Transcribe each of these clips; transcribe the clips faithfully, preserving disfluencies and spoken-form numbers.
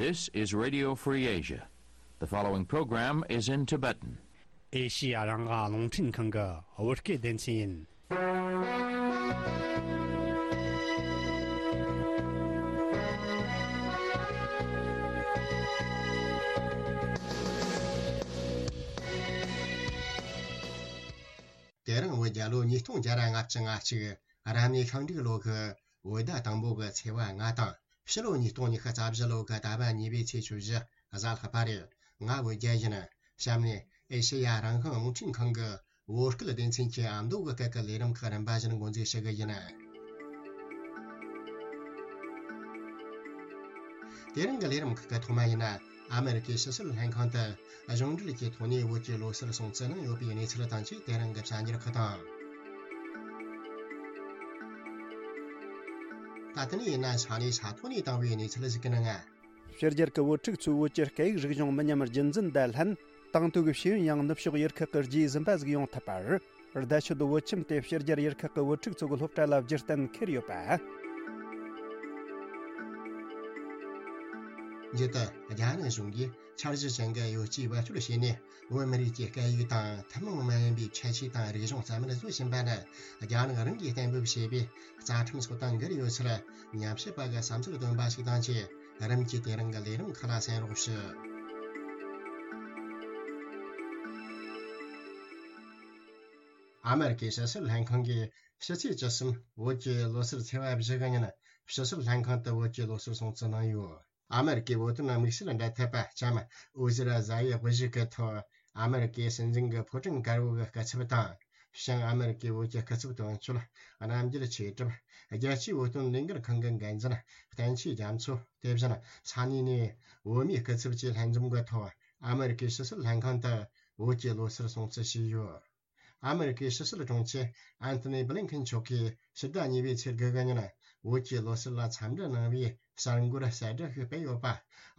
This is Radio Free Asia. The following program is in Tibetan. ཨེ་ཤི་ཡ་རང་དབང་རླུང་འཕྲིན་ཁང་གི་བོད་སྐད་སྡེ་ཚན་ཡིན། དེ་རིང་བོད་རྒྱལ་ལོ་ཉིས་སྟོང་བརྒྱ་ལྔ་བཅུ་ང་གཅིག་རབ་གནས་ཤིང་འབྲུག་ལོ་གི་བོད་ཟླ་དང་པོ་གི་ཚེས་པ་ལྔ་དང་། ཕྱི་ལོ་ཉིས་སྟོང་ཉི་ཤུ་རྩ་བཞི་ལོ་གི་ཟླ་བ་གཉིས་པའི་ཚེས་བཅུ་བཞི་གཟའ་ལྷག་པ་རེད། ང་བོད་རྒྱལ་ཡིན། གཤམ་ནས་ཨེ་ཤེ་ཡ་རང་དབང་རླུང་འཕྲིན་ཁང་གི་བོད་སྐད་སྡེ་ཚན་གྱི་ཨ་མདོ་གི་སྐད་ཀྱི་ལས་རིམ་ཁག་རིམ་པ་བཞིན་འགོ་འཛུགས་ཞུ་གི་ཡིན། དེ་རིང་གི་ལས་རིམ་ཁག་གི་ཐོག་མ་ཡིན་ན། ཨ་མེ་རི་ཀའི་ཕྱི་སྲིད་ལྷན་ཁང་དུ་གཞུང་འབྲེལ་གྱི་ཐོག་ནས་བོད་ཀྱི་ལོ་གསར་སྲུང་བརྩི་གནང་ཡོད་པའི་གནས་ཚུལ་དང་བཅས། དེ་རིང་གི་གསར་འགྱུར་ཁག་དང་། ད་ལྟ་ནས་ཡིན་ན་ས་གནས་ས་ཐོག་ནས་བཏང་བའི་གནས་ཚུལ་ཞིག་གི་ནང་། ཕྱི་རྒྱལ་གྱི་བོད་ཕྲུག་ཚོས་བོད་ཀྱི་སྐད་ཡིག་རིག་གཞུང་མི་ཉམས་རྒྱུན་འཛིན་དང་ལྷན། དང་དུ་གི་ཤེས་ཡོན་ཡང་ནུབ་ཕྱོགས་ཡུལ་ཁག་གི་རྗེས་ཟིན་པ་ཟིག་ཡོང་ཐུབ་པར། བརྡ་ཆད་བོད་ཁྱིམ་དེ་ཕྱི་རྒྱལ་ཡུལ་ཁག་གི་བོད་ཕྲུག་ཚོ་གི་སློབ་གྲྭ་ལ་བསྒྱུར་གཏན་འཁེལ་ཡོད་པ། མཇུག་ཏུ་རྒྱ་ནག་གཞུང་གིས་འཆར་གཞི་ཅན་གྱི་གཡོ་ཇུས་བེད་སྤྱོད་བྱས་ནས། བོད་མི་རིགས་ཀྱི་སྐད་ཡིག་དང་ཐུན་མོང་མ་ཡིན་པའི་ཁྱད་ཆོས་དང་རིག་གཞུང་རྩ་མེད་བཟོ་བཞིན་པ་ནི། རྒྱ་ནག་རང་གིས་གཏན་འབེབས་བྱས་པའི་རྩ་ཁྲིམས་སོགས་དང་འགལ་ཡོད་ཚུལ་ཉམས་ཞིབ་པ་གི་བསམ་ཚུལ་བཏོན་པ་ཞིག་དང་བཅས། རིམ་གྱིས་དེ་རིང་གི་ལས་རིམ་ཁག་ལ་གསན་རོགས་ཞུ། ཨ་མེ་རི་ཀའི་ཕྱི་སྲིད་ལྷན་ཁང་གིས་ཕྱི་ཚེས་བཅུ་གསུམ་བོད་ཀྱི་ལོ་གསར་ཚེས་པ་བཞི་གི་ཉིན། ཕྱི་སྲིད་ལྷན་ཁང་དུ་བོད་ཀྱི་ལོ་གསར་སྲུང་བརྩི་གནང་ཡོད། ཨ་མེ་རི་ཀའི་བོད་དོན་དམིགས་བསལ་འབྲེལ་མཐུད་པ་ལྕམ་ཨོ་ཟི་ར་ཛ་ཡི་དབུ་བཞུགས་ཀྱི་ཐོག་ཨ་མེ་རི་ཀའི་སྲིད་འཛིན་གྱི་ཕོ་བྲང་དཀར་པོ་གི་སྐུ་ཚབ་དང་། བྱང་ཨ་མེ་རི་ཀའི་བོད་ཀྱི་སྐུ་ཚབ་དོན་གཅོད་རྣམ་རྒྱལ་ཆོས་གྲུབ། རྒྱལ་སྤྱིའི་བོད་དོན་ལས་འགུལ་ཁང་གི་འགན་འཛིན་བསྟན་ཆོས་རྒྱ་མཚོ། དེ་བཞིན་ས་གནས་ནས་བོད་མིའི་སྐུ་ཚབ་བཅས་ལྷན་འཛོམས་ཀྱི་ཐོག་ཨ་མེ་རི་ཀའི་ཕྱི་སྲིད་ལྷན་ཁང་དུ་བོད་ཀྱི་ལོ་གསར་སྲུང་བརྩི་བྱས་ཡོད། ཨ་མེ་རི་ཀའི་ཕྱི་སྲིད་དྲུང་ཆེ་ཨན་ཐོ་ནི་བྷི་ལིན་ཁིན་མཆོག་གིས་ཕྱི་ཟླ་གཉིས་པའི་ཚེས་དགུ་གི་ཉིན་བོད་ཀྱི་ལོ་གསར་ལ་འཚམས་འདྲི་གནང་བའི་གསར་འགོད་གསལ་བསྒྲགས་ཤིག་སྤེལ་ཡོད་པ།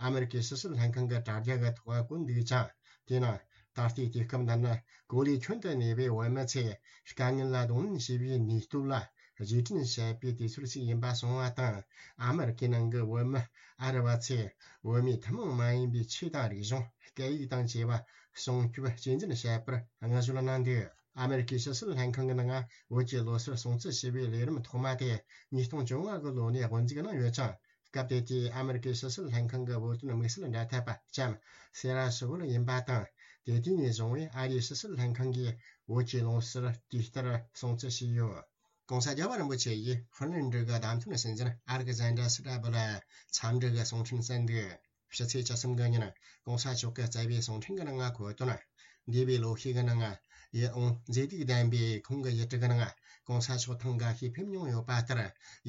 ཨ་མེ་རི་ཀའི་ཕྱི་སྲིད་ལྷན་ཁང་གི་དྲ་རྒྱ་གི་ཐོག་བཀོད་འདུག་ཅིང་། དེས་ན་ད་ལྟའི་དུས་སྐབས་འདི་ནི་གོ་ལའི་ཁྱོན་དུ་གནས་པའི་བོད་མི་ཚོས་དཀའ་ངལ་ལ་གདོང་ལེན་བྱེད་པའི་ནུས་སྟོབས་ལ་རྗེས་དྲན་བྱེད་པའི་དུས་ཚོད་ཅིག་ཡིན་པ་གསུངས་པ་དང་། ཨ་མེ་རི་ཀའི་ནང་གི་བོད་མི་ཨ་རི་བ་ཚོས་བོད་མིའི་ཐུན་མོང་མ་ཡིན་པའི་ཆོས་དང་རིག་གཞུང་། སྐད་ཡིག་དང་བཅས་པ་སྲུང་སྐྱོབ་གཅེས་འཛིན་བྱེད་པར་བསྔགས་བརྗོད་གནང་འདུག་ཨ་མེ་རི་ཀའི་ཕྱི་སྲིད་ལྷན་ཁང་གི་ནང་བོད་ཀྱི་ལོ་གསར་སྲུང་བརྩི་ཞུ་བའི་ལས་རིམ་ཐོག་མ་དེ་ཉིས་སྟོང་བཅོ་ལྔ་གི་ལོ་ནས་དབུ་འཛུགས་གནང་ཡོད་ཅིང་། སྐབས་དེ་དུས་ཨ་མེ་རི་ཀའི་ཕྱི་སྲིད་ལྷན་ཁང་གི་བོད་དོན་དམིགས་བསལ་འབྲེལ་མཐུད་པ་ལྕམ་སེ་ར་སུ་ཝུལ་ཡིན་པ་དང་། དེ་དུས་ནས་བཟུང་བའི་ཨ་རིའི་ཕྱི་སྲིད་ལྷན་ཁང་གིས་བོད་ཀྱི་ལོ་གསར་དུས་ལྟར་སྲུང་བརྩི་བྱས་ཡོད། ྋགོང་ས་རྒྱལ་བ་རིན་པོ་ཆེ་ཡིས་ཧྥིན་ལན་ཌི་གི་བདམས་ཐོན་སྲིད་འཛིན་ཨ་ལེག་ཟན་དྲ་སི་ཏྲ་བུ་ལ་འཚམས་འདྲི་གི་གསུང་འཕྲིན་བསྩལ་འདུག་ཕྱི་ཚེས་བཅུ་གསུམ་གི་ཉིན་ྋགོང་ས་མཆོག་གིས་བསྩལ་བའི་གསུང་འཕྲིན་གྱི་ནང་འཁོད་དོན། འདས་པའི་ལོ་ཤས་ཀྱི་ནང་། ཡིད་འོང་མཛེས་སྡུག་ལྡན་པའི་ཁོང་གི་ཡུལ་གྲུ་གི་ནང་ྋགོང་ས་མཆོག་ཐེངས་འགའ་ཤས་ཕེབས་མྱོང་ཡོད་པ་ལྟར།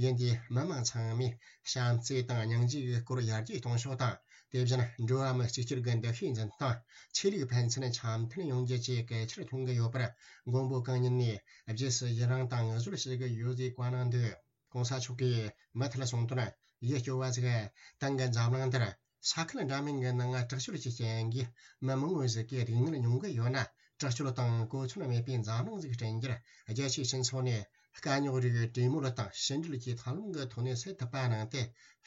ཡུལ་འདིའི་མི་མང་ཚང་མས་བྱམས་བརྩེ་དང་སྙིང་རྗེ་གི་སྐོར་ཡར་རྒྱས་གཏོང་ཕྱོགས་དང་། དེ་བཞིན་འགྲོ་བ་མི་གཅིག་གྱུར་གྱི་འདུ་ཤེས་འཛིན་སྟངས། ཆོས་ལུགས་ཕན་ཚུན་འཆམ་མཐུན་ཡོང་རྒྱུ་བཅས་གལ་ཆེར་མཐོང་གི་ཡོད་པར། མགོན་པོ་གང་ཉིད་ནས་རྗེས་སུ་ཡི་རང་དང་བསྔགས་བརྗོད་བྱེད་ཀྱི་ཡོད་ཅེས་བཀའ་གནང་འདུག ྋགོང་ས་མཆོག་གིས་མུ་མཐུད་གསུངས་དོན། ཡིད་སྐྱོ་བ་ཞིག་ཏང་གི་འཛམ་གླིང་འདིར་ས་ཁུལ་འདྲ་མིན་གྱི་ནང་དྲག་སྤྱོད་ཀྱི་རྐྱེན་གྱིས་མི་མང་བོ་ཞིག་གི་སྡུག་བསྔལ་མྱོང་གི་ཡོད་ན། དྲག་སྤྱོད་དང་གོ་མཚོན་མེད་པའི་འཛམ་གླིང་ཞིག་བསྐྲུན་རྒྱུར་རྒྱལ་སྤྱིའི་སྤྱི་ཚོགས་ནས་དཀའ་རྙོག་རིགས་གྲོས་མོལ་དང་ཕྱི་འབྲེལ་གྱི་ཐབས་ལམ་གྱི་ཐོག་ནས་སེལ་ཐུབ་པ་གནང་སྟེ།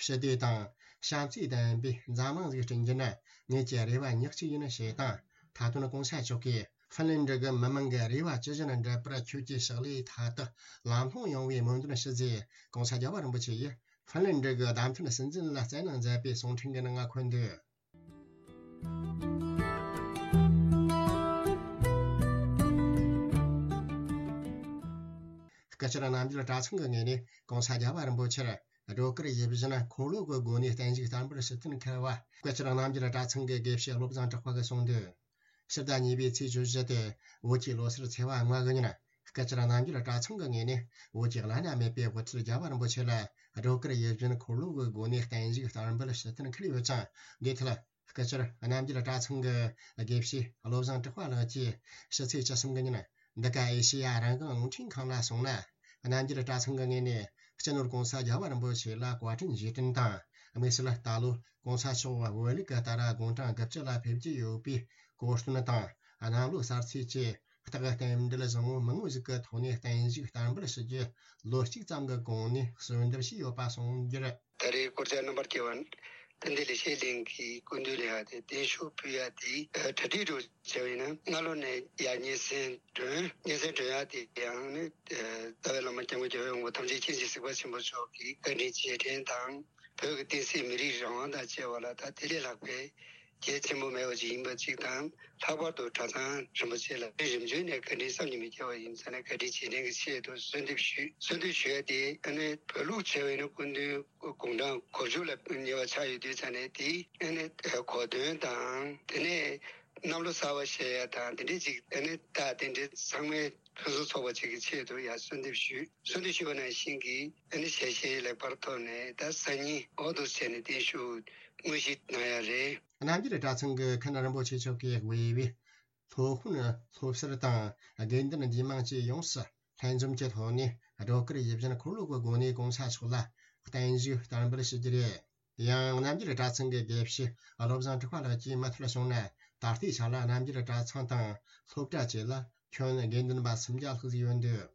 ཞི་བདེ་དང་བྱམས་བརྩེ་ལྡན་པའི་འཛམ་གླིང་ཞིག་བསྐྲུན་རྒྱུ་ནི་ངེད་ཀྱི་རེ་བ་ཉག་གཅིག་ཡིན་ཞེས་དང་། མཐའ་དོན་ྋགོང་ས་མཆོག་གིས་ཧྥིན་ལན་ཌི་གི་མི་མང་གི་རེ་བ་ཇི་བཞིན་འགྲུབ་པར་ཁྱོད་ཀྱི་ཕྱག་ལས་མཐའ་དག་ལམ་ལྷོང་ཡོང་བའི་སྨོན་འདུན་ཞུ་ཅེས་ྋགོང་ས་རྒྱལ་བ་རིན་པོ་ཆེ་ཡིས་ཧྥིན་ལན་ཌི་གི་བདམས་ཐོན་སྲིད་འཛིན་ལ་སྩལ་གནང་མཛད་པའི་གསུང་འཕྲིན་གྱི་ནང་འཁོད་འདུག་སྐུ་བཅར་རྣམ་རྒྱལ་གྲྭ་ཚང་གི་ངོས་ནས་ྋགོང་ས་རྒྱལ་བ་རིན་པོ་ཆེར་སྒྲོལ་དཀར་ཡིད་བཞིན་འཁོར་ལོ་གི་སྒོ་ནས་བརྟན་བཞུགས་བསྟར་འབུལ་ཞུ་གཏན་འཁེལ་བ། སྐུ་བཅར་རྣམ་རྒྱལ་གྲྭ་ཚང་གི་དགེ་བཤེས་བློ་བཟང་གྲགས་པ་གིས་གསུངས་འདུག་ཕྱི་ཟླ་གཉིས་པའི་ཚེས་བཅུ་བཞི་སྟེ་བོད་ཀྱི་ལོ་གསར་ཚེས་པ་ལྔ་གི་ཉིན། སྐུ་བཅར་རྣམ་རྒྱལ་གྲྭ་ཚང་གི་ངོས་ནས་བོད་ཀྱི་བླ་ན་མེད་པའི་དབུ་ཁྲིད་རྒྱལ་བ་རིན་པོ་ཆེ་ལ་སྒྲོལ་དཀར་ཡིད་བཞིན་འཁོར་ལོ་གི་སྒོ་ནས་བརྟན་བཞུགས་བསྟར་འབུལ་ཞུ་གཏན་འཁེལ་ཡོད་ཅིང་། འདིའི་ཐད་སྐུ་བཅར་རྣམ་རྒྱལ་གྲྭ་ཚང་གི་དགེ་བཤེས་བློ་བཟང་གྲགས་པ་ལགས་ཀྱིས་ཕྱི་ཚེས་བཅུ་གསུམ་གི་ཉིན་འདི་ག་ཨེ་ཤེ་ཡ་རང་དབང་རླུང་འཕྲིན་ཁང་ལ་གསུངས་ན། རྣམ་རྒྱལ་གྲྭ་ཚང་གི་ངོས་ནས་སྤྱི་ནོར་ྋགོང་ས་རྒྱལ་བ་རིན་པོ་ཆེ་ལ་བཀའ་དྲིན་རྗེས་དྲན་དང་། དམིགས་བསལ་ད་ལོ་ྋགོང་ས་མཆོག་བོད་ལུགས་ཀྱི་ལྟར་དགུང་གྲངས་དགུ་བཅུ་ལ་ཕེབས་ཀྱི་ཡོད་པའི་གོ་སྟོན་དང་། གནམ་ལོ་གསར་ཚེས་བཅས་རྟགས་རྟེན་འབྲེལ་བཟང་བོ་མང་བོ་ཞིག་གི་ཐོག་ནས་བརྟན་བཞུགས་བསྟར་འབུལ་ཞུ་རྒྱུ་ལོ་གཅིག་ཙམ་གྱི་གོང་ནས་གསོལ་འདེབས་བྱས་ཡོད་པ་གསུངས་རྒྱུར། ད་རེས་སྐོར་ཅན་རྣམ་པར་རྒྱལ་བ། དཔལ་ལྡན་ལེགས་བཤད་གླིང་གི་སྐུ་མདུན་ལ་ཡང་དེ་བརྟན་བཞུགས་ཕུལ་ཡ་དེ་གྲ་སྒྲིག་འགྲོ་བྱས་པ་ཡིན་ན། སྔ་ལོ་ནས་ཡར་སྙན་སེང་སྒྲོན། སྙན་སེང་སྒྲོན་ཡ་དེ་ཡང་ནི་རྩ་བའི་བླ་མ་སྐྱབས་མགོན་རྒྱལ་བའི་དབང་པོ་ཐམས་ཅད་མཁྱེན་ཅིང་གཟིགས་པ་ཆེན་པོ་མཆོག་གི་བཀའ་དྲིན་རྗེས་དྲན་དང་། བོད་ཀྱི་བསྟན་སྲིད་མི་རིགས་རང་དབང་དང་བཅས་པ་ལ་ད་དེ་ལས་ལྷག་པའི་གལ་ཆེན་པོ་མེད་པ་ཅིག་ཡིན་པ་གཅིག་དང་། ལྷག་པར་དུ་གྲྭ་ཚང་རིན་པོ་ཆེ་ལ་རིམ་བྱོན་ནས་བཀའ་དྲིན་བསམ་གྱིས་མི་ཁྱབ་པ་ཡིན་ཙང་ནས། བཀའ་དྲིན་རྗེས་དྲན་གྱི་ཆེད་དུ་གསོལ་འདེབས་ཞུ། གསོལ་འདེབས་ཞུ་ཡ་དེ་ཨ་ནི་བོད་ལུགས་བྱས་པ་ཡིན་ན་སྐུ་མདུན་དགུང་གྲངས་གོ་བཅུ་ལ་ཉེ་བ་ཆགས་ཡོད་དུས་ཙང་ནས། དེ་ཨ་ནི་གོ་སྟོན་དང་། དེ་ནས་གནམ་ལོ་གསར་པ་བཞེས་ཡ་དང་། དེ་འདྲའི་ཅིག་ཨ་ནི་ད་དེ་འདྲའི་ཚང་མའི་ཕུན་སུམ་ཚོགས་པ་ཅིག་གི་ཆེད་དུ་ཡང་གསོལ་འདེབས་ཞུ། གསོལ་འདེབས་ཞུས་པ་ནང་བཞིན་གྱི་ཨ་ནི་ཞལ་བཞེས་ལེགས་པར་ཐོབ་ནས། ད་སང་ཉིན་འོག་ཏུ་བྱས་ནས་བརྟན་བཞུགས་དངོས་གཞི་གནང་ཡ་རེད། རྣམ་རྒྱལ་གྲྭ་ཚང་གི་མཁན་རིན་པོ་ཆེ་མཆོག་གིས་དབུས་པའི་སློབ་དཔོན་སློབ་ཟུར་དང་དགེ་འདུན་འདུས་མང་བཅས་ཡོངས་སུ་ལྷན་འཛོམས་ཀྱི་ཐོག་ནས། སྒྲོལ་དཀར་ཡིད་བཞིན་འཁོར་ལོ་གི་སྒོ་ནས་གོང་ས་མཆོག་ལ་བརྟན་བཞུགས་བསྟར་འབུལ་ཞུ་རྒྱུ་རེད། ཡང་རྣམ་རྒྱལ་གྲྭ་ཚང་གི་དགེ་བཤེས་བློ་བཟང་གྲགས་པ་ལགས་ཀྱིས་མུ་མཐུད་བྱུང་ན། ད་ལྟའི་ཆ་ལ་རྣམ་རྒྱལ་གྲྭ་ཚང་དང་སློབ་གྲྭ་བཅས་ལ་ཁྱོན་དགེ་འདུན་པ་སུམ་བརྒྱ་ལྷག་ཙམ་ཡོད་འདུག།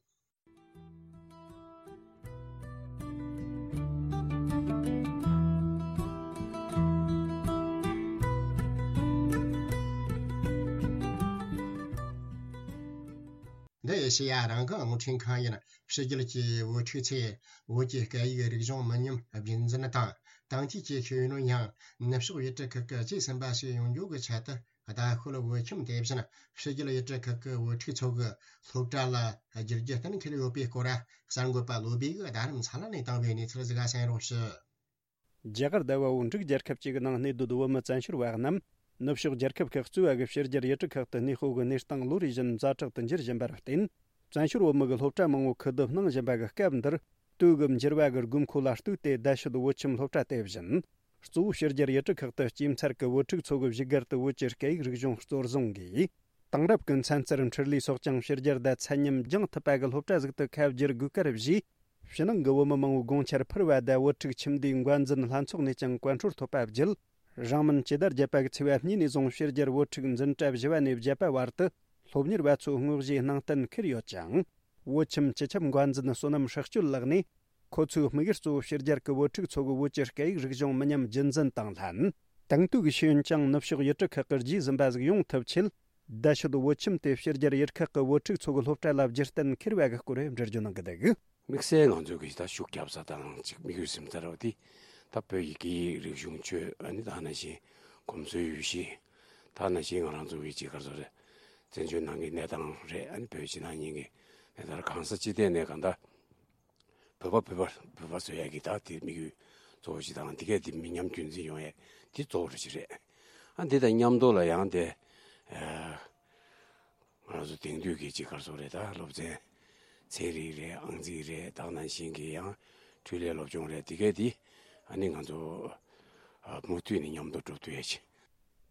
འདི་ཨེ་ཤེ་ཡ་རང་དབང་རླུང་འཕྲིན་ཁང་ཡིན། ཕྱི་རྒྱལ་གྱི་བུ་ཕྲུག་ཚོས་བོད་ཀྱི་སྐད་ཡིག་རིག་གཞུང་མི་ཉམས་རྒྱུན་འཛིན་དང་། དེང་དུས་ཀྱི་ཤེས་ཡོན་ཡང་ནུབ་ཕྱོགས་ཡུལ་གྲུ་ཁག་གི་གཅེས་ཟིན་པ་ཞིག་ཡོང་རྒྱུ་གི་ཆེད་དུ། ད་ཤོད་བོད་ཁྱིམ་དེ་བཞིན་ཕྱི་རྒྱལ་ཡུལ་གྲུ་ཁག་གི་བུ་ཕྲུག་ཚོ་གི་སློབ་གྲྭ་ལ་བསྒྱུར་རྒྱུ་གཏན་འཁེལ་ཡོད་པའི་སྐོར། གསར་འགོད་པ་བློ་བྷེ་གིས་རྡ་རམ་ས་ལ་ནས་བཏང་བའི་གནས་ཚུལ་ཟིག་ག་གསན་རོགས་ཞུ། རྒྱ་གར་ཟླ་བ་བོད་འབྲུག་རྒྱལ་ཁབ་ཅིག་གི་ནང་གནས་སྡོད་བོད་མི་བཙན་བྱོལ་བ་རྣམས་ནུབ་ཕྱོགས་རྒྱལ་ཁབ་ཁག་གཙོས་པ་གི་ཕྱི་རྒྱལ་ཡུལ་གྲུ་ཁག་ཏུ་གནས་སྤོ་གི་གནས་སྟངས་ལོ་རེ་བཞིན་ཛ་དྲག་ཏུ་འགྱུར་བཞིན་པར་བརྟེན། བཙན་བྱོལ་བོད་མི་གི་སློབ་གྲྭ་མང་བོ་ཁུ་བསྡུ་གནང་བཞིན་པ་གི་སྐབས་འདིར། དུས་གི་འགྱུར་བ་གི་དགོས་མཁོ་ལ་ལྟོས་ཏེ། རྡ་ཤོད་བོད་ཁྱིམ་སློབ་གྲྭ་དེ་བཞིན་གཙོ་བོ་ཕྱི་རྒྱལ་ཡུལ་གྲུ་ཁག་ཏུ་སྐྱེས་ཚར་གི་བོད་ཕྲུག་ཚོ་གི་བཞུགས་སྒར་དུ་བོད་ཀྱི་སྐད་ཡིག་རིག་གཞུང་གཙོར་བཟུང་གིས། དེང་རབས་ཀྱི་ཚན་རྩལ་འཕྲུལ་ལས་སོགས་ཀྱང་ཕྱི་རྒྱལ་དང་ཚད་མཉམ་སྦྱང་ཐུབ་པ་གི་སློབ་གྲྭ་ཟིག་ཏུ་ཁ་བསྒྱུར་དགོས་ཀར་བཞེས། ཕྱི་ནང་གི་བོད་མི་མང་བོའི་དགོངས་འཆར་འཕུར་བ་དང་། བོད་ཕྲུག་ཁྱིམ་སྡེའི་འགོ་འཛིན་ལྷན་ཚོགས་ནས་ཀྱང་བཀའ་འཁྲོལ་ཐོབ་པ་བརྒྱུད། རིང་མིན་སྤྱི་ཟླ་བརྒྱད་པ་གི་ཚེས་པ་གཉིས་ནས་བཟུང་ཕྱི་རྒྱལ་བོད་ཕྲུག་འཛིན་གྲྭ་བཞི་བ་ནས་བརྒྱད་པ་བར་དུ་སློབ་གཉེར་བ་ཚོའི་དངོས་གཞིའི་སྣང་བརྟན་འཁུར་ཡོད་ཅིང་། བོད་ཁྱིམ་སྤྱི་ཁྱབ་འགོ་འཛིན་བསོད་ནམས་ཧྲག་སྐྱོད་ལགས་ནས། ཁོ་ཚོའི་དམིགས་ཡུལ་གཙོ་བོ་ཕྱི་རྒྱལ་གྱི་བོད་ཕྲུག་ཚོ་གི་བོད་ཀྱི་སྐད་ཡིག་རིག་གཞུང་མི་ཉམས་རྒྱུན་འཛིན་དང་ལྷན། དེང་དུས་ཀྱི་ཤེས་ཡོན་ཀྱང་ནུབ་ཕྱོགས་ཡུལ་གྲུ་ཁག་གི་རྗེས་ཟིན་པ་ཟིག་ཡོང་ཐུབ་ཆེད། རྡ་ཤོད་བོད་ཁྱིམ་དེ་ཕྱི་རྒྱལ་ཡུལ་ཁག་གི་བོད་ཕྲུག་ཚོ་གི་སློབ་གྲྭ་ལ་བསྒྱུར་གཏན་འཁེལ་བ་གི་སྐོར་འགྲེལ་བརྗོད་གནང་གི་འདུག། དམིགས་བསལ་ང་ཚོ་གི་ད་ཤུགས་རྒྱབ་ས་དང་ཅིག་དམིགས་ཡུལ་ཟིན་ཚར་བ་དེ། ད་བོད་ཀྱི་སྐད་ཡིག་རིག་གཞུང་ཆོས། ཨ་ནི་ད་ནང་བཞིན་གོམས་སྲོལ་ཡུལ་གཞི། ད་ནང་བཞིན་ང་རང་ཚོ་གི་ཅིག་ག་རེ་ཟེར་རེད། བཙན་བྱོལ་ནང་གི་གནས་སྟངས་རེད། ཨ་ནི་བོད་ཕྱི་ནང་གཉིས་ཀྱི་གནས་སྟངས་རེད། གང་ས་ཅི་ཐད་ནས་གང་ལྟར། བོད་པ་བོད་པ་བོད་པ་བཟོ་ཡ་གི་ད་དེ་དམིགས་ཡུལ་གཙོ་བོ་ཞིག་དང་། དེ་གས་དེ་མི་ཉམས་རྒྱུན་འཛིན་ཡོང་ཡ་དེ་གཙོ་བོ་རེ་ཞིག་རེད། ཨ་འདི་དང་མཉམ་དུ་ལ་ཡང་དེ། ཨ་ང་རང་ཚོ་དེང་དུས་ཀྱི་ཅིག་ག་རེ་ཟེར་རེད། ད་སློབ་ཚན་ཚན་རིག་རེད། ཨང་རྩིས་རེད། ད་ནང་བཞིན་གྱི་ཡང་འཕྲུལ་ལས་སློབ་སྦྱོང་རེད། དེ་གས་དེ་ཨ་ནི་ང་ཚོ་ཨ་མུ་མཐུད་ནས་མཉམ་དུ་འགྲོ་ཐུབ་ཡ་ཅིག།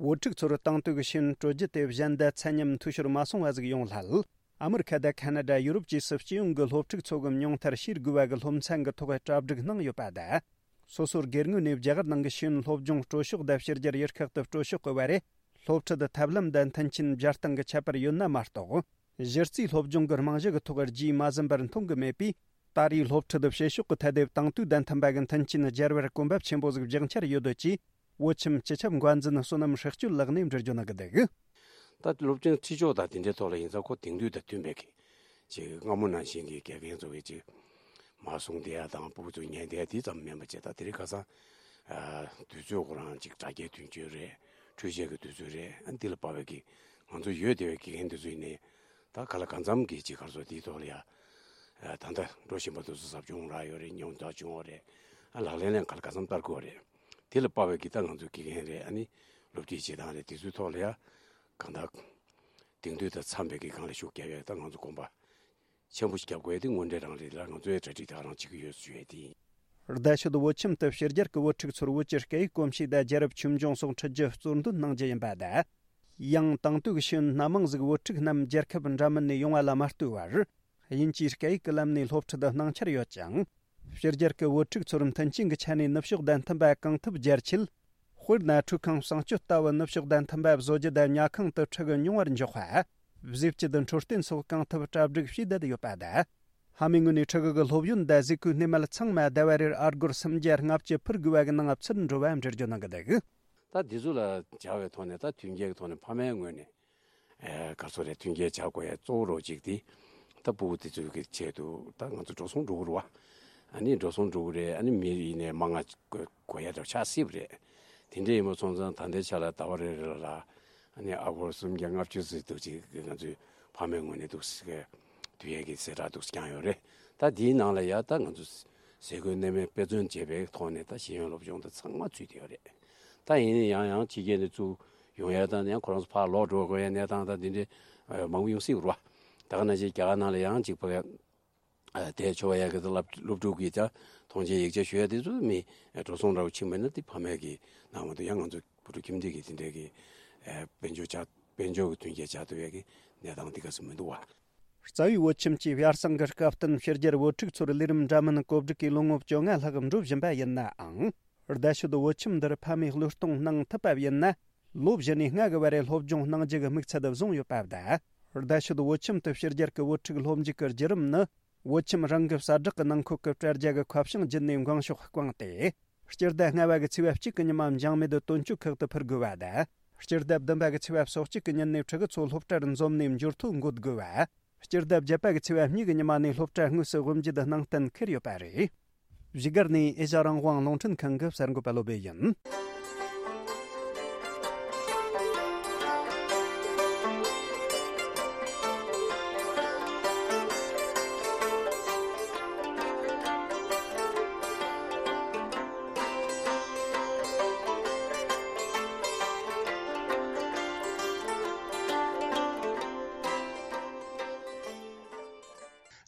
བོད་ཕྲུག་ཚོར་དེང་དུས་ཀྱི་ཤེས་ཡོན་སྤྲོད་རྒྱུ་དེ་གཞན་དང་ཚད་མཉམ་འཐུས་ཤོར་མ་སོང་བ་ཟིག་ཡོང་སླད། ཨ་མི་རི་ཁ་དང་ཁ་ན་ཌ། ཡུ་རོབ་བཅས་སུ་སྤྱི་ཡོངས་ཀྱི་སློབ་ཕྲུག་ཚོ་གི་མྱོང་མཐར་ཤེས་དགོས་པ་གི་སློབ་ཚན་གྱི་ཐོག་གྲ་སྒྲིག་གནང་ཡོད་པ་དང་། སོ་སོར་སྒེར་ངོས་ནས་རྒྱ་གར་ནང་གི་ཤེས་ཡོན་སློབ་སྦྱོང་སྤྲོད་ཕྱོགས་དང་ཕྱི་རྒྱལ་ཡུལ་ཁག་ཏུ་སྤྲོད་ཕྱོགས་ཀྱི་བར་རེ། སློབ་ཁྲིད་ཐབས་ལམ་དང་མཐུན་རྐྱེན་སྦྱར་སྟངས་ཀྱི་ཁྱད་པར་ཡོད་ན་མ་གཏོགས། གཞི་རྩའི་སློབ་སྦྱོང་གི་རྨང་གཞི་གི་ཐོག་རྒྱས་མ་ཟིན་པར་མཐོང་གི་མེད་པས། ད་རེས་སློབ་ཁྲིད་བྱེད་ཕྱོགས་ཀྱི་ཐད་དེ་དེང་དུས་དང་མཐུན་པ་གི་མཐུན་རྐྱེན་སྦྱར་བར་གོམ་པ་ཆེན་པོ་ཟིག་རྒྱག་འཆར་ཡོད་འདོད་ཅེས། བོད་ཁྱིམ་སྤྱི་ཁྱབ་འགོ་འཛིན་བསོད་ནམས་ཧྲག་སྐྱོད་ལགས་ནས་འགྲེལ་བརྗོད་གནང་གི་འདུག། ད་སློབ་སྦྱོང་ཁྲིད་ཕྱོགས་དང་དེ་འདྲའི་ཐོག་ལ་ཡིན་ཙང་། ཁོ་དེང་དུས་དང་མཐུན་པའི་གི་ཅིག་སྔ་མོ་ནང་བཞིན་གྱི་དགེ་རྒན་ཚོ་གི་ཅིག་མར་གསུང་བསྡད་ཡ་དང་། སྤུ་གུ་ཚོ་ཉན་བསྡད་ཡ་དེ་ཙམ་མིན་པ་བྱས། ད་དེ་རིང་ཁ་སང་ཨ་དུས་ཚོད་ཁོ་རང་ཅིག་དྲ་རྒྱའི་དུས་ཚོད་རེད། འཕྲུལ་ཆས་ཀྱི་དུས་ཚོད་རེད། ཨ་འདི་ལ་དཔག་པའི་གི་ང་ཚོ་ཡོད་བསྡད་པའི་དགེ་རྒན་དེ་ཚོ་ཡིན་ནའི། ད་ག་ལ་གང་འཚམ་གྱི་ཅིག་ག་རེ་ཟེར། དེའི་ཐོག་ལ་ཡ་ཨ་ད་ལྟ་འགྲོ་བཞིན་པ་དེ་ཚོ་ཟབ་སྦྱོང་རག་ཡོད་རེད། མྱོང་རྟོགས་བྱུང་བ་རེད། ཨ་ལག་ལེན་ལ་ག་ལ་གང་འཚམ་བསྟར་དགོས་པ་རེད། དེ་ལ་དཔག་པའི་གི་ད་ང་ཚོའི་དགེ་རྒན་རེད། ཨ་ནི་སློབ་ཁྲིད་བྱེད་སྟངས་རེད། དེ་ཚོའི་ཐོག་ལ་ཡ་གང་ལྟར་དེང་དུས་དང་འཚམ་པའི་གི་སྒང་ལ་ཤུགས་རྒྱབ་ཡ་ད་ང་ཚོ་གོམ་པ་ཆེན་པོ་ཞིག་རྒྱབ་དགོས་ཡ་དེ་དངོས་འབྲེལ་རང་རེད་ལ། ང་ཚོའི་གྲ་སྒྲིག་དེ་ག་རང་བྱེད་ཀྱི་ཡོད་ཞུ་ཡ་དེ་ཡིན། རྡ་ཤོད་བོད་ཁྱིམ་དུ་ཕྱི་རྒྱལ་གྱི་བོད་ཕྲུག་ཚོར་བོད་ཀྱི་སྐད་ཡིག་གོམས་གཤིས་དང་རྒྱལ་རབས་ཆོས་འབྱུང་སོགས་ཁྲིད་རྒྱུ་གཙོར་འདོན་གནང་རྒྱུ་ཡིན་པ་དང་། ཡང་དེང་དུས་ཀྱི་ཤེས་ཡོན་སྣ་མང་ཟིག་བོད་ཕྲུག་རྣམས་རྒྱལ་ཁབ་འདྲ་མིན་ནས་ཡོང་བ་ལ་མ་ལྟོས་པར། དབྱིན་ཇིའི་སྐད་ཡིག་གི་ལམ་ནས་སློབ་ཁྲིད་གནང་འཆར་ཡོད་ཅིང་། ཕྱི་རྒྱལ་གྱི་བོད་ཕྲུག་ཚོར་མཐུན་རྐྱེན་གྱི་ཆ་ནས་ནུབ་ཕྱོགས་དང་མཐུན་པ་གང་ཐུབ་སྦྱར་ཆེད། དཔེར་ན། ཁྲུས་ཁང་གསང་སྤྱོད་ལྟ་བུ་ནུབ་ཕྱོགས་དང་མཐུན་པ་བཟོ་རྒྱུ་དང་། ཉལ་ཁང་དུ་ཁྲིད་གི་མྱོང་བར་འཇོག་པ། བཟོས་བཅུད་འཕྲོད་བསྟེན་སོགས་གང་ཐུབ་གྲ་སྒྲིག་བྱས་བསྡད་ཡོད་པ་དང་། ཕ་མའི་ངོས་ནས་ཕྲུ་གུ་གི་སློབ་ཡོན་དང་གཟུགས་པོའི་སྣེ་མལ་ཚང་མ་ཟླ་བ་རེར་ཨ་སྒོར་སུམ་བརྒྱ་ལྔ་བཅུ་ཕུལ་དགོས་པ་གི་ནང་ཚུད་འགྲོ་བ་འགྲེལ་བརྗོད་གནང་གི་འདུག་ད་འདི་ཚོ་ལ་སྦྱར་བའི་ཐོག་ནས་ད་མཐུན་རྐྱེན་གྱི་ཐོག་ནས་ཕ་མའི་ངོས་ནས་ཨེ་ག་ཚོད་རེད། མཐུན་རྐྱེན་སྦྱར་དགོས་ཡ་གཙོ་བོ་རོགས་གཅིག་དེ་ད་ཕྲུ་གུ་དེ་ཚོའི་གི་ཆེད་དུ་ད་ང་ཚོ་འགྲོ་སོང་འགྲོ་གི་རེད་བ། ཨ་ནི་འགྲོ་སོང་འགྲོ་གི་རེད། ཨ་ནི་མི་ཡིན་ནའི་མང་ང་དགོས་ཡ་འདྲ་ཆགས་སྲིད་པ་རེད། དེ་འདྲ་ཡིན་པ་སོང་ཙང་ད་ལྟའི་ཆ་ལ་ཟླ་བ་རེ་རེ་ལ་ཨ་ནི་ཨ་སྒོར་སུམ་བརྒྱ་ལྔ་བཅུ་ཙམ་འདུག་ཅིག་ང་ཚོའི་ཕ་མའི་ངོས་ནས་འདུག་ཟེར་གི་དུས་ཡས་ཀྱི་གསལ་བསྒྲགས་འདུག་བསྐྱངས་ཡོད་རེད། ད་དེའི་ནང་ལ་ཡ་ད་ང་ཚོ་ཟས་གོས་གནས་མལ་དཔེ་མཚོན་བྱས་པའི་ཐོག་ནས་ད་ཤེས་ཡོན་སློབ་སྦྱོང་དེ་ཚང་མ་ཚུད་བསྡད་ཡོད་རེད། ད་ཡིན་ན་ཡང་ཡང་ཕྱི་རྒྱལ་ནས་ཚུར་ཡོང་ཡ་དང་ཡང་ཁོ་རང་ཚོ་ཕར་ལོག་འགྲོ་དགོས་ཡ་གནས་སྟངས་དང་དེ་འདྲའི་མང་པོ་ཡོང་སྲིད་རེད་བ། ད་ག་ནང་བཞིན་རྒྱ་གར་ནང་ལ་ཡང་གཅིག་ཕ་གི་ཨ་དེ་ཆོ་བ་ཡ་གི་ད་སློབ་སློབ་ཕྲུག་གིས་ཀྱང་མཐོང་ཆེན་ཡིག་ཆ་ཞུ་ཡ་དེ་ཚོ་མི་འགྲོ་སོང་འདྲ་བོ་ཕྱིན་པ་ཡིན་ན་དེ་ཕ་མས་ཀྱི་ནང་མ་གཏོགས་ཡང་ང་ཚོ་བུ་ཕྲུག་ཁྱིམ་སྡེ་གི་དེ་འདྲའི་གི་ཨ་དཔལ་འབྱོར་ཆག་དཔལ་འབྱོར་གྱི་མཐུན་རྐྱེན་ཆགས་ཐུབ་ཡ་གི་གནས་སྟངས་དེ་ག་ཚོད་མི་འདུག་བ། རྩ་བའི་བོད་ཁྱིམ་གྱི་ཡར་སང་གི་སྐབས་བསྟུན་ཕྱི་རྒྱལ་བོད་ཕྲུག་ཚོར་ལས་རིམ་འདྲ་མིན་བཀོད་སྒྲིག་གིས་ལོ་ངོ་བཅོ་ལྔ་ལྷག་འགྲོ་བཞིན་པ་ཡིན་ནའང་། བརྡ་ཤོད་བོད་ཁྱིམ་འདིར་ཕ་མས་གློད་གཏོང་གནང་ཐུབ་པ་ཡིན་ན། ལོ་བཞི་ནས་ལྔ་གི་བར་རེ་སློབ་སྦྱོང་གནང་རྒྱུ་གི་དམིགས་ཚད་བཟུང་ཡོད་པ་དང་། བརྡ་ཤོད་བོད་ཁྱིམ་དུ་ཕྱི་རྒྱལ་གྱི་བོད་ཕྲུག་སློབ་འཇུག་གི་བརྒྱུད་རིམ་ནི། བོད་ཁྱིམ་རང་གི་གསལ་བསྒྲགས་ཀྱི་ནང་འཁོད་ཀྱི་དྲ་རྒྱ་གི་ཁ་བྱང་བརྒྱུད་ནས་འགེངས་ཤོག་བསྐངས་ཏེ། སྤྱི་ཟླ་ལྔ་པ་གི་ཚེས་པ་གཅིག་གི་ཉི་མ་འཇང་མེད་དུ་དོན་གཅོད་ཁག་ཏུ་ཕུལ་དགོས་པ་དང་། སྤྱི་ཟླ་བདུན་པ་གི་ཚེས་པ་སོ་གཅིག་གི་ཉིན་ནས་ཕྲུ་གུ་ཚོ་སློབ་གྲྭར་འཛོམས་ནས་འབྱོར་ཐོ་འགོད་དགོས་པ། སྤྱི་ཟླ་བརྒྱད་པ་གི་ཚེས་པ་གཉིས་ཀྱི་ཉི་མ་ནས་སློབ་གྲྭ་དངོས་སུ་དབུ་འབྱེད་གནང་གཏན་འཁེལ་ཡོད་པ་རེད། བཞུགས་སྒར་ནས་ཨེ་ཤ་རང་དབང་རླུང་འཕྲིན་ཁང་གི་གསར་འགོད་པ་བློ་བྷེ་ཡིན།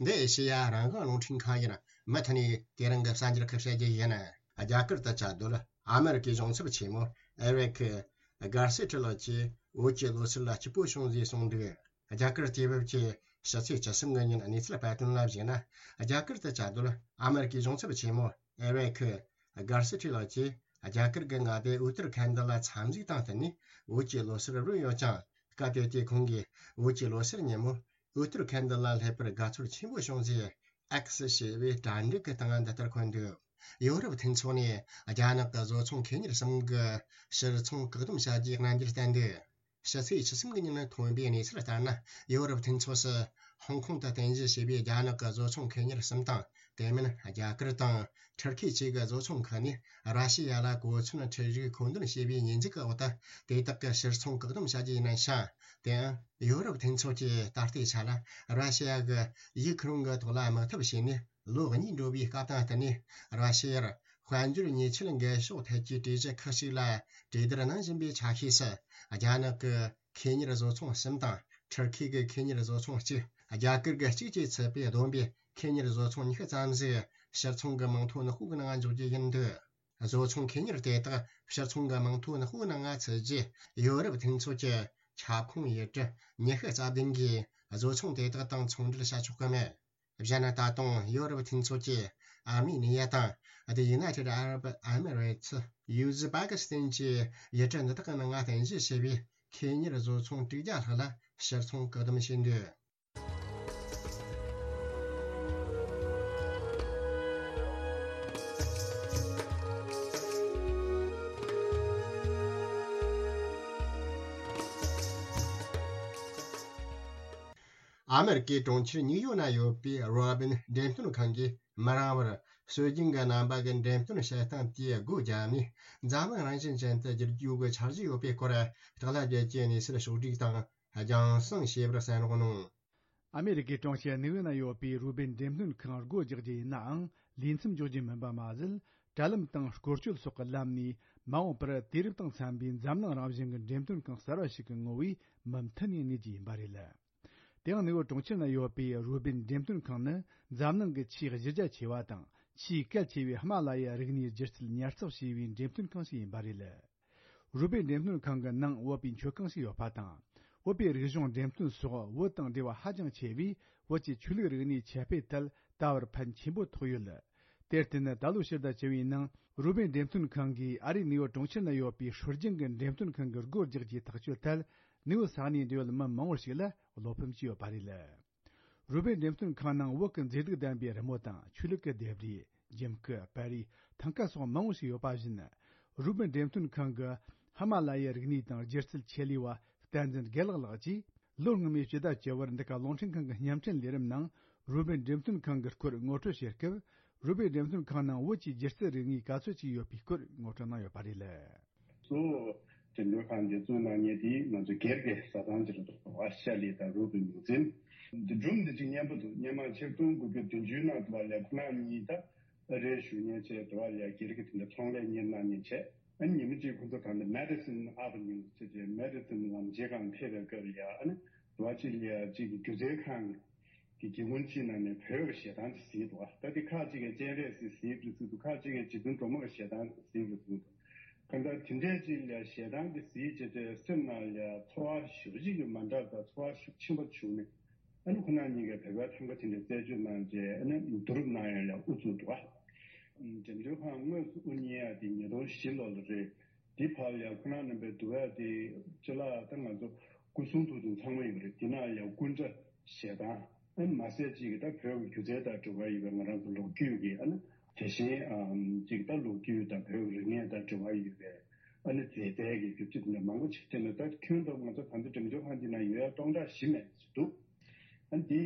འདི་ཨེ་ཤེ་ཡ་རང་དབང་རླུང་འཕྲིན་ཁང་ཡིན། མུ་མཐུད་ནས་དེ་རིང་གི་གསར་འགྱུར་ཁག་བཤད་རྒྱུ་ཡིན། རྒྱ་གར་དུ་བཅའ་སྡོད་ཨ་མེ་རི་ཀའི་གཞུང་ཚབ་ཆེན་མོ་ཨེ་རིག་གྷར་སི་ཊི་ལགས་ཀྱིས་བོད་ཀྱི་ལོ་གསར་ལ་སྐྱིད་པོ་བྱུང་ཟེར་གསུངས་འདུག་རྒྱ་གར་དུས་བབ་ཀྱི་ཕྱི་ཚེས་བཅུ་གསུམ་གི་ཉིན་གནས་ཚུལ་སྤེལ་དོན་ལ་གཞིགས་ན། རྒྱ་གར་དུ་བཅའ་སྡོད་ཨ་མེ་རི་ཀའི་གཞུང་ཚབ་ཆེན་མོ་ཨེ་རིག་གྷར་སི་ཊི་ལགས་ཀྱིས་རྒྱ་གར་གྱི་མངའ་སྡེ་ཨུ་ཏར་ཁན་ཌ་ལ་འཚམས་གཟིགས་དང་བསྟུན་ནས་བོད་ཀྱི་ལོ་གསར་རོལ་ཡོད་ཅིང་། སྐབས་དེ་དུས་ཁོང་གིས་བོད་ཀྱི་ལོ་གསར་ཉིན་མོ་ཨུ་ཏར་ཁན་ཌ་ལ་སླེབས་པར་དགའ་ཚོར་ཆེན་པོ་བྱུང་ཟེར། ཨེག་སི་ཞེས་པའི་དྲ་འགྲིག་གི་སྟེང་འདི་ལྟར་འཁོད་འདུག་ཡོ་རོབ་མཐུན་ཚོགས་ནས་རྒྱ་ནག་གི་བཟོ་ཚོང་མཁས་གཉེར་གསུམ་གྱི་ཕྱིར་ཚོང་བཀག་སྡོམ་བྱ་རྒྱུའི་རྣམ་འགྱུར་བསྟན་འདུག་ཕྱི་ཚེས་བཅུ་གསུམ་གྱི་ཉིན་ཐོན་པའི་གནས་ཚུལ་ལྟར་ན། ཡོ་རོབ་མཐུན་ཚོགས་སུ་ཧོང་ཀོང་དུ་རྟེན་གཞི་བྱས་པའི་རྒྱ་ནག་གི་བཟོ་ཚོང་མཁས་གཉེར་གསུམ་དང་། དེ་མིན་རྒྱ་གར་དང་ཐུར་ཁེ་བཅས་ཀྱི་བཟོ་ཚོང་ཁག་ནས་ར་ཤི་ཡ་ལ་གོ་མཚོན་འཕྲུལ་རིག་མཁོ་འདོན་བྱས་པའི་ཉེས་འཛུགས་ཀྱི་འོག་ཏུ་དེ་དག་གི་ཕྱིར་ཚོང་བཀག་སྡོམ་བྱ་རྒྱུ་ཡིན་ཞིང་། དེའང་ཡོ་རོབ་མཐུན་ཚོགས་ཀྱིས་ད་ལྟའི་ཆ་ལ་ར་ཤི་ཡ་གི་ཡུ་ཁུ་རེན་གྱི་ཐོག་ལ་དམག་འཐབ་བྱས་ནས་ལོ་གཉིས་འགྲོ་བའི་སྐབས་དང་བསྟུན་ནས། ར་ཤི་ཡར་དཔལ་འབྱོར་ཉེས་ཆད་འགེལ་ཕྱོགས་ཐད་ཀྱི་གྲོས་གཞི་ཁག་ཅིག་ལ་གྲོས་བསྡུར་གནང་བཞིན་པའི་ཆ་ཤས་སུ། རྒྱ་ནག་གི་ཁེ་གཉེར་བཟོ་ཚོང་གསུམ་དང་། ཐུར་ཁེ་གི་ཁེ་གཉེར་བཟོ་ཚོང་གཅིག་རྒྱ་གར་གྱི་གཅིག་བཅས་ཚུད་པའི་བསྡོམས་པས་ཁེ་གཉེར་བཟོ་ཚོང་ཉི་ཤུ་ཙམ་ཞིག་ཕྱིར་ཚོང་གི་མིང་ཐོ་ནག་པོའི་ནང་འཇོག་རྒྱུ་ཡིན་འདུག་བཟོ་ཚོང་ཁེ་གཉེར་དེ་དག་ཕྱིར་ཚོང་གི་མིང་ཐོ་ནག་པོའི་ནང་ཚུད་རྗེས། ཡོ་རོབ་མཐུན་ཚོགས་ཀྱི་ཁྱབ་ཁོངས་ཡུལ་གྲུ་ཉི་ཤུ་རྩ་བདུན་གྱིས་བཟོ་ཚོང་དེ་དག་དང་ཚོང་འབྲེལ་བྱ་ཆོག་གི་མེད། གཞན་ད་དུང་ཡོ་རོབ་མཐུན་ཚོགས་ཀྱིས་ཨར་མི་ནི་ཡ་དང་། The United Arab Emirates། ཡུ་ཟི་པ་ཀི་སི་ཐན་གྱི་ཡུལ་གྲུ་འདི་དག་གི་ནང་རྟེན་གཞི་བྱས་པའི་ཁེ་གཉེར་བཟོ་ཚོང་དྲུག་བརྒྱ་ལྷག་ལ་ཕྱིར་ཚོང་བཀག་སྡོམ་བྱས་འདུག་ཨ་མེ་རི་ཀའི་གྲོང་ཁྱེར་ཉིའུ་ཡོག་ན་ཡོད་པའི་རོ་བིན་འགྲེམས་སྟོན་ཁང་གིས་མི་རིང་བར་སྲོལ་རྒྱུན་གྱི་རྣམ་པ་གི་འགྲེམས་སྟོན་བྱེད་སྟངས་དེ་སྒོ་བརྒྱབ་ནས། འཛམ་གླིང་རང་བཞིན་ཅན་དུ་བསྒྱུར་རྒྱུ་གི་འཆར་གཞི་ཡོད་པའི་སྐོར་བརྟག་ལ་བརྒྱད་ཀྱི་གནས་ཚུལ་ཕྱོགས་བསྒྲིགས་དང་རྒྱང་སྲིང་བྱས་པར་གསན་རོགས་གནང་། ཨ་མེ་རི་ཀའི་གྲོང་ཁྱེར་ནིའུ་ཡོག་ན་ཡོད་པའི་རུ་བིན་འགྲེམས་སྟོན་ཁང་སྒོ་རྒྱག་རྒྱུ་ཡིན་ནའང་། ལས་མཚམས་འཇོག་རྒྱུ་མིན་པ་མ་ཟད། དྲ་ལམ་དང་སྐོར་སྐྱོད་སོགས་ཀྱི་ལམ་ནས་མ་འོངས་པར་དུས་རབས་དང་འཚམ་པའི་འཛམ་གླིང་རང་བཞིན་གྱི་འགྲེམས་སྟོན་ཁང་གསར་བ་ཞིག་གི་ངོ་བོས་མུ་མཐུད་ནས་གནས་རྒྱུ་ཡིན་པ་རེད། དེའང་ནིའུ་ཡོག་གྲོང་ཁྱེར་ན་ཡོད་པའི་རུ་བིན་འགྲེམས་སྟོན་ཁང་ནི་འཛམ་གླིང་གི་ཆེས་གཞི་རྒྱ་ཆེ་བ་དང་ཆེས་གལ་ཆེ་བའི་ཧི་མ་ལ་ཡའི་རིག་གནས་སྒྱུ་རྩལ་ཉར་ཚགས་བྱས་པའི་འགྲེམས་སྟོན་ཁང་ཞིག་ཡིན་པ་རེད། རུ་བིན་འགྲེམས་སྟོན་ཁང་གི་ནང་བོད་པའི་མཆོད་ཁང་ཞིག་ཡོད་པ་དང་། བོད་པའི་རིག་གཞུང་འགྲེམས་སྟོན་སོགས་བོད་དང་འབྲེལ་བ་ཧ་ཅང་ཆེ་བས། བོད་ཀྱི་ཆོས་ལུགས་རིག་གནས་ཁྱབ་སྤེལ་ཐད་ད་བར་ཕན་ཆེན་པོ་ཐོགས་ཡོད། དེར་བརྟེན་ད་ལོ་ཕྱི་ཟླ་བཅུ་བའི་ནང་རུ་བིན་འགྲེམས་སྟོན་ཁང་གིས་ཨ་རིའི་ནིའུ་ཡོག་གྲོང་ཁྱེར་ན་ཡོད་པའི་སྲོལ་རྒྱུན་གྱི་འགྲེམས་སྟོན་ཁང་གི་སྒོ་རྒྱག་རྒྱུའི་ཐག་གཅོད་ཐད། ནིའུ་ཡོག་ས་གནས་འབྲེལ་ཡོད་མི་མང་བོ་ཞིག་ལ་བློ་ཕམ་བྱས་ཡོད་པ་རེད། རུ་སྦལ་འགྲེམས་སྟོན་ཁང་ནང་བོད་ཀྱི་མཛེས་སྡུག་ལྡན་པའི་རི་མོ་དང་ཆོས་ལུགས་ཀྱི་ལྡེབས་རིས། འཇིམ་སྐུ། པར་རིས། ཐང་ཀ་སོགས་མང་བོ་ཞིག་ཡོད་པ་བཞིན། རུ་སྦལ་འགྲེམས་སྟོན་ཁང་གི་ཧི་མ་ལ་ཡའི་རིག་གནས་དང་སྒྱུ་རྩལ་ཆེད་ལས་པ་བསྟན་འཛིན་དགེ་ལེགས་ལགས་ཀྱིས། ལོ་སྔོན་མའི་ཕྱི་ཟླ་བཅུ་པར་འདི་ག་རླུང་འཕྲིན་ཁང་གི་བརྙན་འཕྲིན་ལས་རིམ་ནང་རུ་སྦལ་འགྲེམས་སྟོན་ཁང་གི་སྐོར་ངོ་སྤྲོད་བྱེད་སྐབས། རུ་སྦལ་འགྲེམས་སྟོན་ཁང་ནང་བོད་ཀྱི་སྒྱུ་རྩལ་རིག་གནས་ག་ཚོད་ཅིག་ཡོད་པའི་སྐོར་ངོ་སྤྲོད་གནང་ཡོད་པ་རེད། གཙོ་བོ་འགྲེམས་སྟོན་ཁང་འདི་བཙུགས་གནང་མཁན་དེ་ང་ཚོ་སྒེར་གྱི་བཟའ་ཚང་ཅིག་རེད་འདུག་པ། ཤ་ལི་དང་རུ་སྦལ་ཉིན་མཚན་འདི་སྒྲུང་འདི་གཅིག་སྙན་པོ་འདུག་སྔོན་མ་ཆིག་སྟོང་དགུ་བརྒྱ་བདུན་ཅུ་ནང་དུ་བ་ལས་ཁོ་ན་གཉིས་ད་ཨ་རིར་བཞུགས་མཁན་བྱས་དུ་བ་ལས་སྒེར་གྱི་དེ་འདྲ་ཚོང་ལས་གཉེར་གནང་མཁན་བྱས། ཨ་ནི་ཉི་མ་གཅིག་ཁོ་ཚོ་ད་ལྟ་མེ་ཌི་སིན་ཨ་བི་ནིའུ་ཟེར་བྱས་མེ་ཌི་སིན་ལམ་བྱེད་ཁང་ཕེབས་པའི་སྐབས་ལ་ཨ་ནི་དུ་བ་གཅིག་ལ་གཅིག་གི་སྒྱུ་རྩལ་ཁང་གི་སྒེའུ་ཁུང་གཅིག་ནང་ནས་བོད་ཀྱི་གཞས་གཏམ་ཅིག་གཟིགས་འདུག་ད་དེ་ཁག་ཅིག་གིས་སྤྱན་རས་གཟིགས་གཟིགས་རེད་ཟེར་འདུག་ཁག་ཅིག་གིས་རྗེ་བཙུན་སྒྲོལ་མ་གི་གཞས་གཏམ་གཟིགས་རེད་ཟེར་འདུག་གང་ལྟར་དེ་འདྲའི་ཅིག་ལ་གཞས་གཏམ་དེ་གཟིགས་བྱས་ཏེ་སེམས་ནང་ལ་ཚོར་བ་ཞེ་པོ་ཅིག་གི་མ་འདྲ་དང་ཚོར་བ་ཤུགས་ཆེན་པོ་བྱུང་ནས། ཨ་ནི་ཁོ་རང་གཉིས་ཀས་བོད་པའི་ཐང་ཀ་དེ་འདྲ་རྩད་གཅོད་གནང་རྗེས་ཨ་ནི་བསྡུ་རུབ་གནང་ཡག་ལ་དབུ་བཙུགས་འདུག་ག་འགྲེམས་སྟོན་ཁང་དངོས་སུ་དབུ་བརྙེས་ཡག་དེ་ཉིས་སྟོང་བཞི་ལོ་ལ་རེད། དེ་བར་ལ་ཁོ་རང་རྣམ་པའི་འདུག་ཡག་དེ་ཅི་ལ་ད་ང་ཚོ་སྐུ་གསུང་ཐུགས་དང་ཚང་མ་ཡོད་རེད། དེ་ནང་ལ་སྐུ་འདྲ་ཞལ་ཐང་ཨ་ནི་མ་ཟད་ཅིག་གི་ད་བོད་ཀྱི་སྒྱུ་རྩལ་དང་འབྲེལ་བ་ཡོད་པའི་ང་རང་ཚོ་ལོ་རྒྱུས་ཀྱི་ཨ་ནི་དེ་བཞིན་ཨམ་ཅིག་ད་ལོ་རྒྱུས་དང་བོད་ཀྱི་རིག་གནས་དང་འབྲེལ་བ་ཡོད་པའི། ཨ་ནི་མཛེས་རྩལ་གྱི་རྒྱུ་ཆ་དེ་འདྲ་མང་པོ་ཅིག་བསྟན་ནས། ད་ཁྱོན་བསྡོམས་ང་ཚོ་ད་ལྟ་འགྲེམས་སྟོན་ཁང་འདི་ན་ཡོད་ཡ་སྟོང་ཕྲག་བཞི་མེད་ཅིག་འདུག་ཨ་ནི་འདི་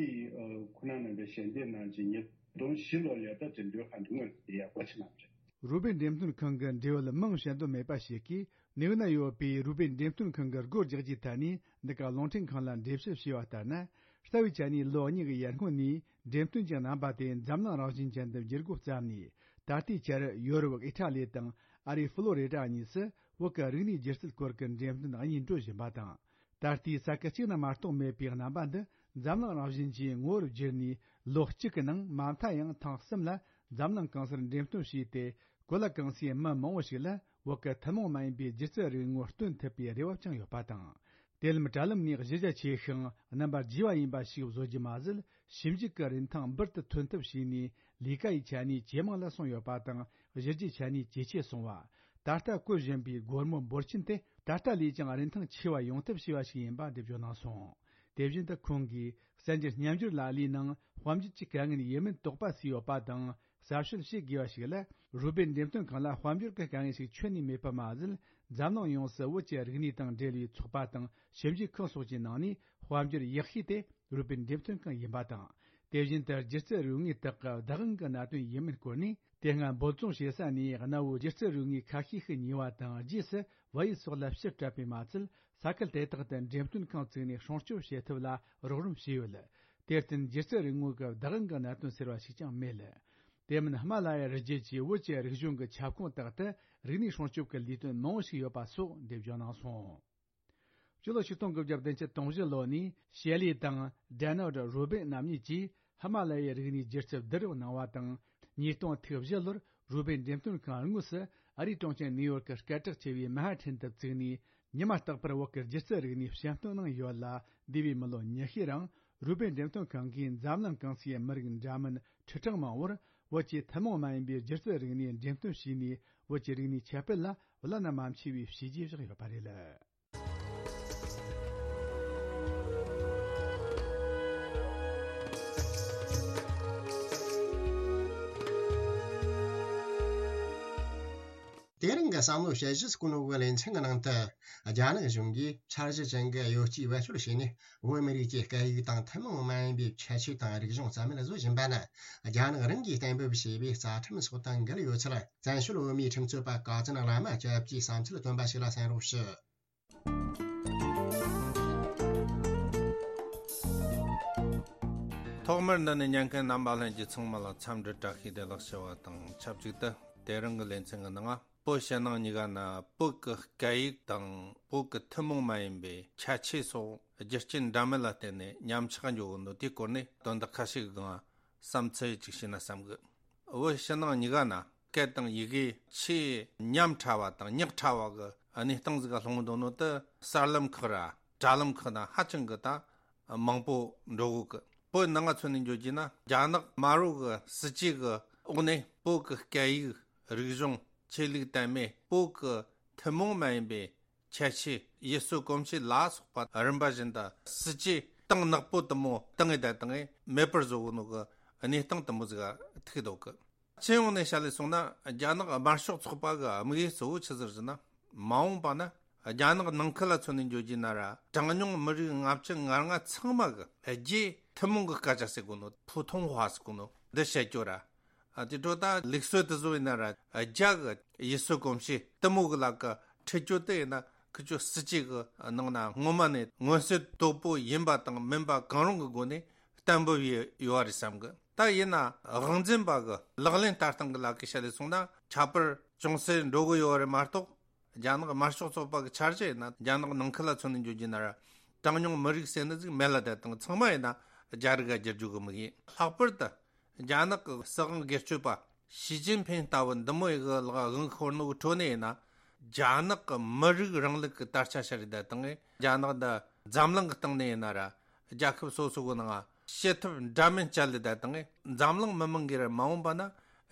ཁོ་ན་རྣམ་པས་ཞལ་འདེབས་གནང་རྗེས་ཉིས་སྟོང་བཞི་ལོ་ལ་ད་འགྲེམས་སྟོན་ཁང་འདི་དངོས་སུ་བསྡད་ཡ་སྒོ་ཕྱེ་གནང་བ་རེད། རུ་སྦལ་འགྲེམས་སྟོན་ཁང་གི་འབྲེལ་ཡོད་མིང་བཤད་འདོད་མེད་པ་ཞིག་གིས། ནིའུ་ན་ཡོད་པའི་རུ་སྦལ་འགྲེམས་སྟོན་ཁང་གི་སྒོ་རྒྱག་རྒྱུའི་ཐད་ནས་འདི་ག་རླུང་འཕྲིན་ཁང་ལ་འགྲེལ་བཤད་བྱས་པ་ལྟར་ན། རྩ་བའི་ཆ་ནས་ལོ་གཉིས་ཀྱི་ཡར་སྔོན་ནས་འགྲེམས་སྟོན་གྱི་རྣམ་པ་དེ་འཛམ་གླིང་རང་བཞིན་ཅན་དུ་འགྱུར་འགོ་བརྩམས་ནས། ད་ལྟའི་ཆར་ཡོ་རོབ་ཨི་ཊ་ལི་དང་ཨ་རིའི་ཧྥ་ལོ་རི་ཌ་གཉིས་སུ་བོད་ཀྱི་རིག་གནས་སྒྱུ་རྩལ་སྐོར་གྱི་འགྲེམས་སྟོན་གཉིས་འགྲོ་བཞིན་པ་དང་། ད་ལྟའི་ས་ཁུལ་གཅིག་ན་མ་གཏོགས་མེད་པའི་རྣམ་པ་འདི་འཛམ་གླིང་རང་བཞིན་གྱི་ངོ་བོར་བསྒྱུར་ནས། ལོ་གཅིག་གི་ནང་མ་མཐའ་ཡང་ཐེངས་གསུམ་ལ་འཛམ་གླིང་གང་སར་འགྲེམས་སྟོན་བྱས་ཏེ། གོ་ལ་གང་སའི་མི་མང་བོ་ཞིག་ལ་བོད་ཀྱི་ཐུན་མོང་མ་ཡིན་པའི་སྒྱུ་རྩལ་རིག་ངོ་སྟོན་ཐུབ་པའི་རེ་བ་བཅངས་ཡོད་པ་དང་། དེ་ལམ་དྲ་ལམ་ནས་གཞི་རྒྱ་ཆེ་ཞིང་རྣམ་པར་རྒྱས་པ་ཡིན་པ་ཞིག་བཟོ་རྒྱུ་མ་ཟད། ཞིབ་འཇུག་གི་རིན་ཐང་འབུར་དུ་ཐོན་ཐབས་བྱས་ནས། ལས་ཀ་ཡི་ཆ་ནས་ཇེ་མང་ལ་སོང་ཡོད་པ་དང་། གཞི་རྒྱའི་ཆ་ནས་ཇེ་ཆེ་སོང་བ། ད་ལྟ་བཀོད་བཞིན་པའི་སྒོར་མོ་འབོར་ཆེན་དེ་ད་ལྟ་ལས་ཀྱང་རིན་ཐང་ཆེ་བ་ཡོང་ཐབས་བྱས་པ་ཞིག་ཡིན་པ་འགྲེལ་བརྗོད་གནང་སོང་། དེ་བཞིན་དུ་ཁོང་གིས་གསར་འགྱུར་སྙན་སྒྱུར་ལ་ལའི་ནང་དཔལ་འབྱོར་གྱི་དཀའ་ངལ་ཡིན་མིན་དོགས་པ་ཟིན་ཡོད་པ་དང་། གསར་བཤད་བྱེད་དགོས་པ་ཞིག་ལ། རུས་སྦལ་འགྲེམས་སྟོན་ཁང་ལ་དཔལ་འབྱོར་གྱི་དཀའ་ངལ་ཞིག་ཁྱོན་ནས་མེད་པ་མ་ཟད། འཛམ་གླིང་ཡོངས་སུ་བོད་ཀྱི་རིག་གནས་དང་འབྲེལ་བའི་ཚོགས་པ་དང་ཞིབ་འཇུག་ཁང་སོགས་ཀྱི་ནང་ནས་དཔལ་འབྱོར་ཡག་ཤོས་དེ་རུས་སྦལ་འགྲེམས་སྟོན་ཁང་ཡིན་པ་དང་། དེ་བཞིན་དུ་སྒྱུ་རྩལ་རིག་དངོས་དག་གི་བདག་དབང་གི་གནད་དོན་ཡིན་མིན་སྐོར་ནས། དེ་སྔ་འབོལ་རྫོང་ཞེ་ས་ནས་གནའ་བོའི་སྒྱུ་རྩལ་རིག་དངོས་ཁ་ཤས་ཤིག་ཉོས་པ་དང་། རྗེས་སུ་བལ་ཡུལ་སོགས་ལ་ཕྱིར་སྤྲད་པས་མ་ཚད། ས་ཁུལ་དེ་དག་ཏུ་འགྲེམས་སྟོན་ཁང་བཙུགས་ནས་སྲུང་སྐྱོབ་བྱེད་ཐབས་ལ་རོགས་རམ་བྱས་ཡོད། དེར་བརྟེན་སྒྱུ་རྩལ་རིག་དངོས་ཀྱི་བདག་དབང་གི་གནད་དོན་ཟེར་བ་ཞིག་ཀྱང་མེད། དེ་མིན་ཧི་མ་ལ་ཡའི་རི་རྒྱུད་ཀྱི་བོད་ཀྱི་རིག་གཞུང་གི་ཁྱབ་ཁོངས་དག་ཏུ་རིག་གནས་སྲུང་སྐྱོབ་ཀྱི་ལས་དོན་མང་བོ་ཞིག་ཡོད་པ་སོགས་འགྲེལ་བརྗོད་གནང་སོང་། སྤྱི་ལོ་ཆིག་སྟོང་དགུ་བརྒྱ་བདུན་ཅུ་དོན་བཞི་ལོ་ནས་ཤེ་ལི་དང་ཌེ་ནལ་ཌི་རུ་སྦལ་རྣམ་གཉིས་ཀྱིས་ཧི་མ་ལ་ཡའི་རིག་གནས་སྒྱུ་རྩལ་བསྡུ་རུབ་གནང་བ་དང་། ཉིས་སྟོང་ཐིག་བཞི་ལོར་རུས་སྦལ་འགྲེམས་སྟོན་ཁང་དངོས་སུ་ཨ་རིའི་གྲོང་ཁྱེར་ནིའུ་ཡོག་གི་སྐད་གྲགས་ཆེ་བའི་མན་ཧ་ཐན་དུ་བཙུགས་ནས། ཉི་མ་རྟག་པར་བོད་ཀྱི་སྒྱུ་རྩལ་རིག་གནས་བཤམས་སྟོན་གནང་ཡོད་ལ། འདས་པའི་མི་ལོ་ཉི་ཤུའི་རིང་རུས་སྦལ་འགྲེམས་སྟོན་ཁང་གིས་འཛམ་གླིང་གང་སའི་མི་རིགས་འདྲ་མིན་ཁྲི་ཕྲག་མང་བོར་བོད་ཀྱི་ཐུན་མོང་མ་ཡིན་པའི་སྒྱུ་རྩལ་རིག་གནས་འགྲེམས་སྟོན་བྱས་ནས། བོད་ཀྱི་རིག་གནས་ཁྱབ་སྤེལ་ལ་བླ་ན་མ་མཆིས་པའི་བྱས་རྗེས་བཞག་ཡོད་པ་རེད། དེ་རིང་གི་བསམ་བློ་དཔྱད་གཞི་སྐུ་ནོ་གི་ལེ་ཚན་གྱི་ནང་དུ། རྒྱ་ནག་གཞུང་གིས་འཆར་གཞི་ཅན་གྱི་གཡོ་སྐྱེལ་བེད་སྤྱོད་བྱས་ནས། བོད་མི་རིགས་ཀྱི་སྐད་ཡིག་དང་ཐུན་མོང་མ་ཡིན་པའི་ཁྱད་ཆོས་དང་རིག་གཞུང་རྩ་མེད་བཟོ་བཞིན་པ་ནི། རྒྱ་ནག་རང་གིས་གཏན་འབེབས་བྱས་པའི་རྩ་ཁྲིམས་སོགས་དང་འགལ་ཡོད་ཚུལ། བཙན་བྱོལ་བོད་མིའི་ཁྲིམས་རྩོད་པ་ཀ་ཙན་བླ་མ་སྐྱབས་ཀྱིས་བསམ་ཚུལ་བཏོན་པ་ཞིག་ལ་གསན་རོགས་ཞུ། ཐོག་མར་འདི་ནས་ཉན་མཁན་རྣམ་པ་ལྷན་རྒྱས་ཚང་མ་ལ་འཚམས་འདྲི་བཀྲ་ཤིས་བདེ་ལེགས་ཞུ་བ་དང་ཆབས་ཅིག་ཏུ། དེ་རིང་གི་ལེ་ཚན་གྱི་ནང་། བོད་ཕྱི་ནང་གཉིས་ཀ་ན་བོད་ཀྱི་སྐད་ཡིག་དང་བོད་ཀྱི་ཐུན་མོང་མ་ཡིན་པའི་ཁྱད་ཆོས་སོགས་རྒྱུ་རྐྱེན་འདྲ་མིན་ལ་བརྟེན་ནས་ཉམས་ཆག་འགྲོ་གི་འདུག་དེའི་སྐོར་ནས་དོན་དག་ཁ་ཤས་ཀྱི་སྒང་བསམ་ཚུལ་ཅིག་བཤད་ན་བསམ་གི། བོད་ཕྱི་ནང་གཉིས་ཀ་ན་སྐད་དང་ཡི་གེ་ཆེས་ཉམས་ཕྲ་བ་དང་ཉག་ཕྲ་བ་གི་གནས་སྟངས་ཟིག་ག་ལྷུང་འདུག་ནོ་དེ་གསར་ལམ་ཁག་ར་དྲ་ལམ་ཁག་ན་ཧ་ཅང་གི་ད་མང་པོ་འགྲོ་གི། བོད་ནང་ང་མཚོན་ནས་འཇོག་རྒྱུ་ན། རྒྱ་ནག་དམར་པོ་གི་སྲིད་ཇུས་གི་འོག་ནས་བོད་གི་སྐད་ཡིག་རིག་གཞུང་ཆོས་ལུགས་དད་མོས། བོད་གི་ཐུན་མོང་མ་ཡིན་པའི་ཁྱད་ཆོས་ཡུལ་སྲོལ་གོམས་གཤིས་ལ་སོགས་པ་རིམ་པ་བཞིན་དུ་སྲིད་ཇུས་ གཏིང་ནག་པོ་དེ་མོ་བཏང་ངེ་བསྡད་བཏང་ངེ་མེད་པར་བཟོ་གོ་ནོ་གི་གནས་སྟངས་དེ་མོ་ཟིག་ཐུག་འདུག་གི། སྤྱི་ཡོངས་ནས་བཤད་ལས་སོང་ན། རྒྱ་ནག་དམར་ཤོག་ཚོགས་པ་གི་དམིགས་ཡུལ་གཙོ་བོ་ཆི་ཟིག་ཟེར་ན། མ་འོངས་པ་ན་རྒྱ་ནག་ནང་ཁུལ་ལ་མཚོན་ནས་འཇོག་རྒྱུ་ན་ར། གྲངས་ཉུང་མི་རིགས་ལྔ་བཅུ་ང་ལྔ་ཚང་མ་གི་རྒྱའི་ཐུན་མོང་གི་སྐད་ཆ་ཟེར་གོ་ནོ། ཕུའུ་ཐུང་ཧྭ་ཟེར་གོ་ནོ་འདི་བཤད་རྒྱུ་ར། ཨ་དེ་འཕྲོ་ད་ལུགས་སྲོལ་དེ་བཟོ་ཡིན་ན་ར། རྒྱ་གི་ཡུལ་སྲོལ་གོམས་གཤིས་དེ་མོ་གི་ལ་ཀ་ཁྲིད་རྒྱུ་དེ་ཡིན་ན། ཁི་ཆོ་སྲིད་ཇུས་གི་ནང་ན་སྔོན་མ་ནས་མངོན་གསལ་དོད་པོ་ཡིན་པ་དང་མིན་པ་གང་རུང་གི་སྒོ་ནས་གཏན་འབེབས་ཡོད་ཡོད་རེད་བསམ་གི། ད་ཡིན་ན་དབང་འཛིན་པ་གི་ལག་ལེན་བསྟར་སྟངས་གི་ལ་ཀ་བཤད་ལས་སོང་ན། ཁྱད་པར་ཅུང་ཟད་འགྲོ་གི་ཡོད་རེད་མ་གཏོགས། རྒྱ་ནག་དམར་ཤོག་ཚོགས་པ་གི་འཆར་གཞི་ཡིན་ན། རྒྱ་ནག་ནང་ཁུལ་ལ་མཚོན་ནས་འཇོག་རྒྱུ་ན་ར། གྲངས་ཉུང་མི་རིགས་ཟེར་ནི་ཟིག་མེད་ལ་བསྡད་དང་། ཚང་མ་ཡིན་ན་རྒྱ་རིགས་ག་བསྒྱུར་རྒྱུ་གི་དམིགས་ཡུལ། ལྷག་པར་དུ་རྒྱ་ནག་གི་སྲིད་དབང་སྒེར་གཅོད་པ་ཞི་ཅིན་ཕིན་ལྟ་བུ་འདི་མོ་ཡི་གི་ལག་དབང་ཤོར་ནོ་གི་ཁྲོད་ནས་ཡིན་ན། རྒྱ་ནག་གི་མི་རིགས་རིང་ལུགས་གི་དར་ཆ་ཤར་རེ་བསྡད་དང་། རྒྱ་ནག་འདི་འཛམ་གླིང་གི་སྟེང་ནས་ཡིན་ན་ར། རྒྱལ་ཁབ་སོ་སོ་གི་ནང་བྱེད་ཐབས་འདྲ་མིན་སྤྱད་ལེ་བསྡད་དང་། འཛམ་གླིང་མི་མང་གིས་ར་མ་འོངས་པ་ན་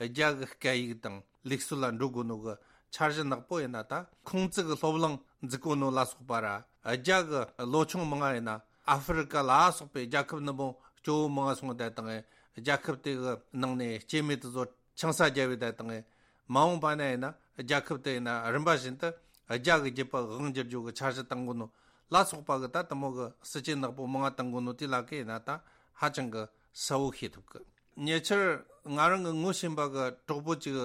རྒྱ་གི་སྐད་ཡིག་དང་ལུགས་སྲོལ་ལ་འགྲོ་དགོས་ནོ་གི་འཆར་གཞི་ནག་པོ་ཡིན་ན། ད་ཁུང་ཙི་གི་སློབ་གླིང་འཛུགས་གོ་ནོ་ལ་སོགས་པ་ར། རྒྱ་གི་ལོ་ཆུང་མང་ང་ཡིན་ན་ཨ་ཧྥེ་རི་ཀ་ལ་སོགས་པའི་རྒྱལ་ཁབ་འདི་མོ་སྐྱོ་བོ་མང་ང་སོང་བསྡད་དང་། རྒྱལ་ཁབ་དེ་གི་ནང་ནས་སྐྱེ་དམན་དེ་ཚོ་ཆང་ས་རྒྱབ་བེ་བསྡད་དང་། མ་འོངས་པ་ན་ཡིན་ན་རྒྱལ་ཁབ་དེ་ཡིན་ན་རིམ་པ་བཞིན་དུ་རྒྱ་གི་རྒྱུད་པ་དབང་བསྒྱུར་རྒྱུ་གི་འཆར་གཞི་བཏང་གོ་ནོ་ལ་སོགས་པ་གི་ད་དེ་མོ་གི་སྲིད་ཇུས་ནག་པོ་མང་ང་བཏང་གོ་ནོ་དེ་ལ་ཀ་ཡིན་ན་ད་ཧ་ཅང་གི་གསལ་བོ་ཤེས་ཐུབ་གི། ཉེ་ཆར་ང་རང་གི་ངོ་ཤེས་པ་གི་གྲོགས་པོ་གཅིག་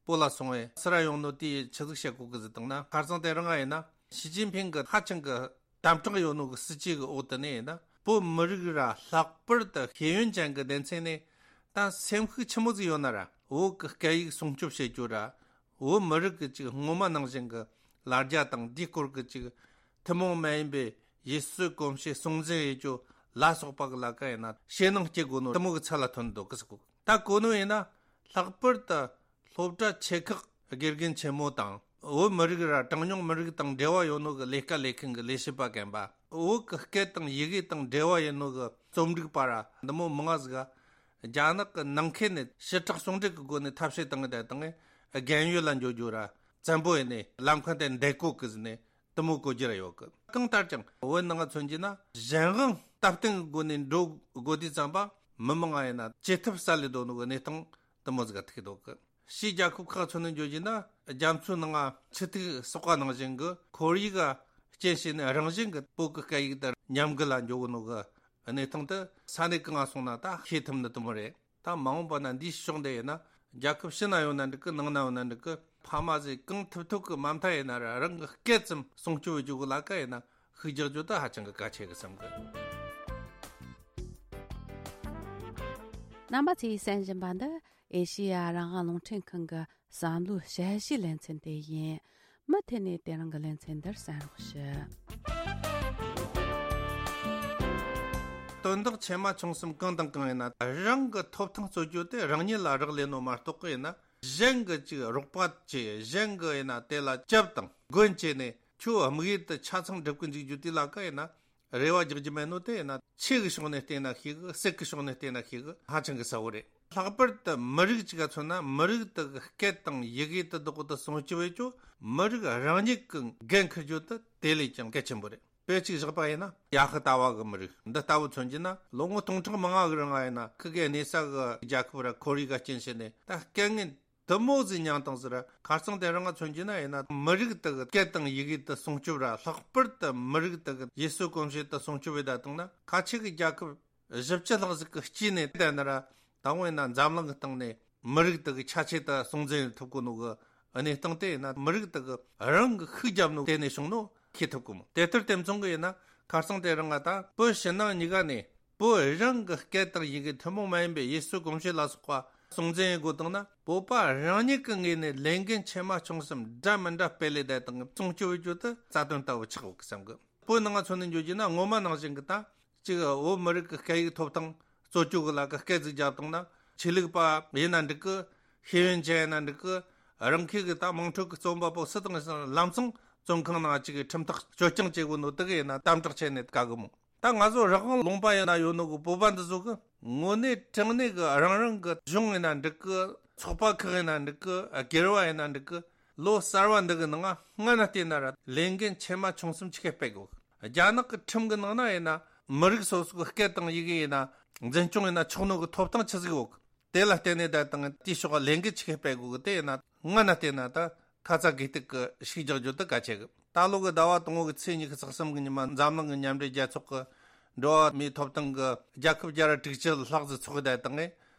བོད་ལ་སོང་བས་སུ་ར་ཡོང་ནོ་དེ་ཆི་ཟིག་བཤད་གོ་གི་ཟེར་བཏང་ན། ཁ་སང་དེ་རིང་ང་ཡིན་ན་ཞི་ཅིན་ཕིང་གི་ཧ་ཅང་གི་དམ་དྲག་ཡོད་ནོ་གི་སྲིད་ཇུས་གི་འོག་ཏུ་ནས་ཡིན་ན། བོད་མི་རིགས་ར་ལྷག་པར་དུ་ཤེས་ཡོན་ཅན་གི་སྡེ་ཚན་ནས་ད་སེམས་ཤུགས་ཆི་མོ་ཟིག་ཡོད་ན་ར། བོད་གི་སྐད་ཡིག་སྲུང་སྐྱོབ་བྱེད་རྒྱུ་ར། བོད་མི་རིགས་གི་ཅིག་སྔོན་མ་ནང་བཞིན་གི་ལ་རྒྱ་དང་དེའི་སྐོར་གི་ཅིག་ཐུན་མོང་མ་ཡིན་པའི་ཡུལ་སྲོལ་གོམས་གཤིས་སྲུང་འཛིན་ཡེད་རྒྱུ་ལ་སོགས་པ་གི་ལ་ཀ་ཡིན་ན་ཞེད་སྣང་སྐྱེ་དགོས་ནོ་དེ་མོ་གི་ཚད་ལ་ཐོན་འདུག་གི་ཟེར་གོ། ད་གོ་ནོ་ཡིན་ན་ལྷག་པར་དུ་སློབ་གྲྭ་ཆེ་ཁག་དགེ་རྒན་ཆེན་མོ་དང་བོད་མི་རིགས་ར་གྲངས་ཉུང་མི་རིགས་དང་འབྲེལ་བ་ཡོད་ནོ་གི་ལས་ཀ་ལས་མཁན་གི་ལས་བྱེད་པ་རྒན་པ། བོད་གི་སྐད་དང་ཡི་གེ་དང་འབྲེལ་བ་ཡོད་ནོ་གི་རྩོམ་སྒྲིག་པ་ར་འདི་མོ་མང་ང་ཟིག་ག་རྒྱ་ནག་གི་ནང་ཁུལ་ནས་ཞི་དྲག་ཟུང་འབྲེལ་གི་སྒོ་ནས་ཐབས་ཤེས་བཏང་ངེ་བསྡད་དང་། རྒན་ཡོལ་ལ་འགྱོ་རྒྱུ་ར་བཙན་པོ་ཡིན་ནས་ལམ་ཁ་དེ་འདེད་གོ་གི་ཟེར་ནས་དེ་མོ་གོ་རྒྱུ་ར་ཡོད་གི། གང་ལྟར་ཀྱང་བོད་ནང་ང་མཚོན་རྒྱུ་ན་གཞན་དབང་སྟབས་བསྟུན་གི་སྒོ་ནས་འགྲོ་དགོས་དུས་ཙམ་པ་མི་མང་ང་ཡིན་ན་བྱེད་ཐབས་སལ་ལེ་འདུག་ནོ་གི་གནས་སྟངས་དེ་མོ་ཟིག་ག་ཐུག་འདུག་གི། ཕྱིའི་རྒྱལ་ཁབ་ཁག་མཚོན་ནས་འཇོག་རྒྱུ་ན། རྒྱ་མཚོའི་ནང་ང་ཆུ་ཐིགས་གསོག་པ་ནང་བཞིན་གི་ཁོར་ཡུག་ག་རྐྱེན་བྱས་ནས་རང་བཞིན་གི་བོད་གི་སྐད་ཡིག་དེ་ཉམས་རྒུད་ལ་འགྱོ་གོ་ནོ་གི་གནས་སྟངས་དེ་ས་གནས་གང་ང་སོང་ན་ད་ཤེས་ཐུབ་ནི་དེ་མོ་རེད། ད་མ་འོངས་པ་ན་འདིའི་ཕྱོགས་འདི་ཡིན་ན་རྒྱལ་ཁབ་ཕྱི་ན་ཡོད་ན་འགྲིག་གི། ནང་ན་ཡོད་ན་འགྲིག་གི། ཕ་མ་ཟིག་གང་ཐུབ་ཐུབ་གི་མ་མཐའ་ཡིན་ན་ར་རང་གི་སྐད་ཙམ་སྲུང་སྐྱོབ་བྱེད་རྒྱུ་གི་ལ་ཀ་ཡིན་ན་ཤུགས་རྒྱག་རྒྱུ་ད་ཧ་ཅང་གི་གལ་ཆེ་གི་བསམ་གི། རྣམ་པ་ཚོས་གསན་བཞིན་པ་འདི་ཨེ་ཤེ་ཡ་རང་དབང་རླུང་འཕྲིན་ཁང་གི་བསམ་བློའི་དཔྱད་གཞིའི་ལེ་ཚན་དེ་ཡིན། མུ་མཐུད་ནས་དེ་རིང་གི་ལེ་ཚན་འདིར་གསན་རོགས་ཞུ། དོན་དག་ཆེ་མ་ཆུང་གསུམ་གང་དང་གང་ཡིན་ན་རང་གི་ཐོབ་ཐང་རྩོད་རྒྱུ་དེ་རང་ཉིད་ལ་རག་ལས་ནོ་མ་གཏོགས་གི་ཡིན་ན། གཞན་གི་ཅིག་རོགས་པ་བྱས། གཞན་གི་ཡིན་ན་དེ་ལ་སྐྱབས་དང་མགོན་བྱས་ནས་ཁྱོད་དམིགས་ཡུལ་དེ་ཆ་ཚང་འགྲུབ་གི་འཇུག་རྒྱུ་དེ་ལ་ཀ་ཡིན་ན་རེ་བ་རྒྱག་རྒྱུ་མེད་ནོ་དེ་ཡིན་ན། ཆོས་གི་ཕྱོགས་ནས་བལྟས་ན་ཤེས་གི། སྲིད་གི་ཕྱོགས་ནས་བལྟས་ན་ཤེས་གི། ཧ་ཅང་གི་གསལ་བོ་རེད། ལྷག་པར་དུ་མི་རིགས་གཅིག་ག་མཚོན་ན། མི་རིགས་དེ་གི་སྐད་དང་ཡི་གེ་དེ་དག་དེ་སྲུང་སྐྱོབ་བྱེད་རྒྱུ་མི་རིགས་རང་ཉིད་ཀྱི་འགན་འཁུར་རྒྱུ་དེ་དེ་ལས་ཀྱང་གལ་ཆེན་པོ་རེད། དཔེ་གཅིག་བཞག་པ་ཡིན་ན། ཡ་ཧི་ཏ་བ་གི་མི་རིགས་འདི་ལྟ་བུ་མཚོན་རྒྱུ་ན། ལོ་ངོ་སྟོང་ཕྲག་མང་ང་གི་རིང་ང་ཡིན་ན་ཁི་གེ་གནས་ས་གི་རྒྱལ་ཁབ་ར་ཁོར་ཡུག་ག་རྐྱེན་བྱས་ནས་ད་སྐད་ངན་དེ་མོ་ཟིག་མྱངས་བཏང་ཟེར་ར། ཁ་སང་དེ་རིང་ང་མཚོན་རྒྱུ་ན་ཡིན་ན། མི་རིགས་དེ་གི་སྐད་དང་ཡི་གེ་དེ་སྲུང་སྐྱོབ་ར། ལྷག་པར་དུ་མི་རིགས་དེ་གི་ཡུལ་སྲོལ་གོམས་གཤིས་དེ་སྲུང་སྐྱོབ་བྱེད་བསྡད་བཏང་ན། ཁ་ཆེ་གི་རྒྱལ་ཁབ་བཞི་བཅུ་ལྷག་ཟིག་གི་དཀྱིལ་ནས་བསྡད་ན་ར། ད་འོ་ཡིན་ན་འཛམ་གླིང་གི་སྟེང་ནས་མི་རིགས་དེ་གི་ཆ་ཆེ་དེ་སྲུང་འཛིན་ཐུབ་གོ་ནོ་གི་གནས་སྟངས་དེ་ཡིན་ན། མི་རིགས་དེ་གི་རང་གི་ཤུགས་རྒྱབ་ནོ་དེ་ནས་བྱུང་ནོ་ཤེས་ཐུབ་གོ་མོ། དེ་ལྟར་དེ་མཚུངས་གི་ཡིན་ན། ཁ་སང་དེ་རིང་ང་ད་བོད་ཕྱི་ནང་གཉིས་ཀ་ནས་བོད་རང་གི་སྐད་དང་ཡི་གེ་ཐུན་མོང་མ་ཡིན་པའི་ཡུལ་སྲོལ་གོམས་གཤིས་ལ་སོགས་པ་སྲུང་འཛིན་ཡེད་དགོས་བཏང་ན། བོད་པ་རང་ཉིད་ཀྱི་ངོས་ནས་ལས་འགན་ཆེ་མ་ཆུང་གསུམ་འདྲ་མི་འདྲ་སྤེལ་ལེ་བསྡད་དང་སྲུང་སྐྱོབ་བྱེད་རྒྱུ་དེ་རྩ་དོན་ལྟ་བུ་ཆགས་ཡོད་གི་བསམ་གི། བོད་ནང་ང་མཚོན་ནས་འཇོག་རྒྱུ་ན། སྔོན་མ་ནང་བཞིན་གི་ད་གཅིག་བོད་མི་རིགས་ཀྱི་སྐད་ཡིག་ཐོབ་ཐང་རྩོད་རྒྱུ་གི་ལ་ཀ་སྐད་ཅིག་རྒྱབ་བཏང་ན། ཆོས་ལུགས་པ་ཡིན་ན་འགྲིག་གི། ཤེས་ཡོན་ཅན་ཡིན་ན་འགྲིག་གི། རང་ཁུལ་གི་ད་དམངས་ཁྲོད་ཀྱི་རྩོམ་པ་པོ་སུ་དང་སུ་ལམ་སང་བཙོན་ཁང་ནང་གཅིག་གི་ཁྲིམས་ཐག་གཅོད་རྐྱང་བྱེད་དགོས་ནོ་དེ་གི་ཡིན་ན་དམ་དྲག་བྱས་ནས་དགའ་གི་མོ། ད་ང་ཚོ་རང་དབང་ལུང་པ་ཡིན་ན་ཡོད་ནོ་གི་བོད་པ་འདི་ཚོ་གི་དངོས་གནས་དྲང་གནས་གི་རང་རང་གི་གཞུང་ཡིན་ན་འགྲིག་གི། ཚོགས་པ་ཁག་ཡིན་ན་འགྲིག་གི། སྒེར་བ་ཡིན་ན་འགྲིག་གི། ལོ་གསར་བ་འདི་གི་ནང་ང་སྔ་ན་བལྟས་ན་ར་ལས་འགན་ཆེ་མ་ཆུང་གསུམ་ཆི་གེ་སྤེལ་དགོས། རྒྱ་ནག་གི་ཁྲིམས་གི་ནང་ན་ཡིན་ན། མི་རིགས་སོ་སོའི་སྐད་དང་ཡི་གེ་ཡིན་ན་འཛིན་སྐྱོང་ཡིན་ན་ཆོག་ནོ་གི་ཐོབ་ཐང་ཆི་ཟིག་ཡོད་གི། དེ་ལ་བརྟེན་ནས་ད་དང་དེའི་ཕྱོགས་ལས་འགུལ་ཆི་གི་སྤེལ་དགོས་གི། དེ་ཡིན་ན་སྔ་ན་བལྟས་ན་ད་ཁ་ཚ་དགོས་གཏུག་གི་ཤིག་རྒྱག་རྒྱུ་དེ་གལ་ཆེ་གི། ད་ལོ་གི་ཟླ་བ་དང་པོ་གི་ཚེས་ཉི་ཤུ་རྩ་གསུམ་གི་ཉི་མ་འཛམ་གླིང་གི་མཉམ་འབྲེལ་རྒྱལ་ཚོགས་གི་འགྲོ་བ་མིའི་ཐོབ་ཐང་གི་རྒྱལ་ཁབ་བརྒྱ་ར་དྲུག་ཅུ་ལྷག་ཙམ་ཚོགས་གི་ད་དང་ངས་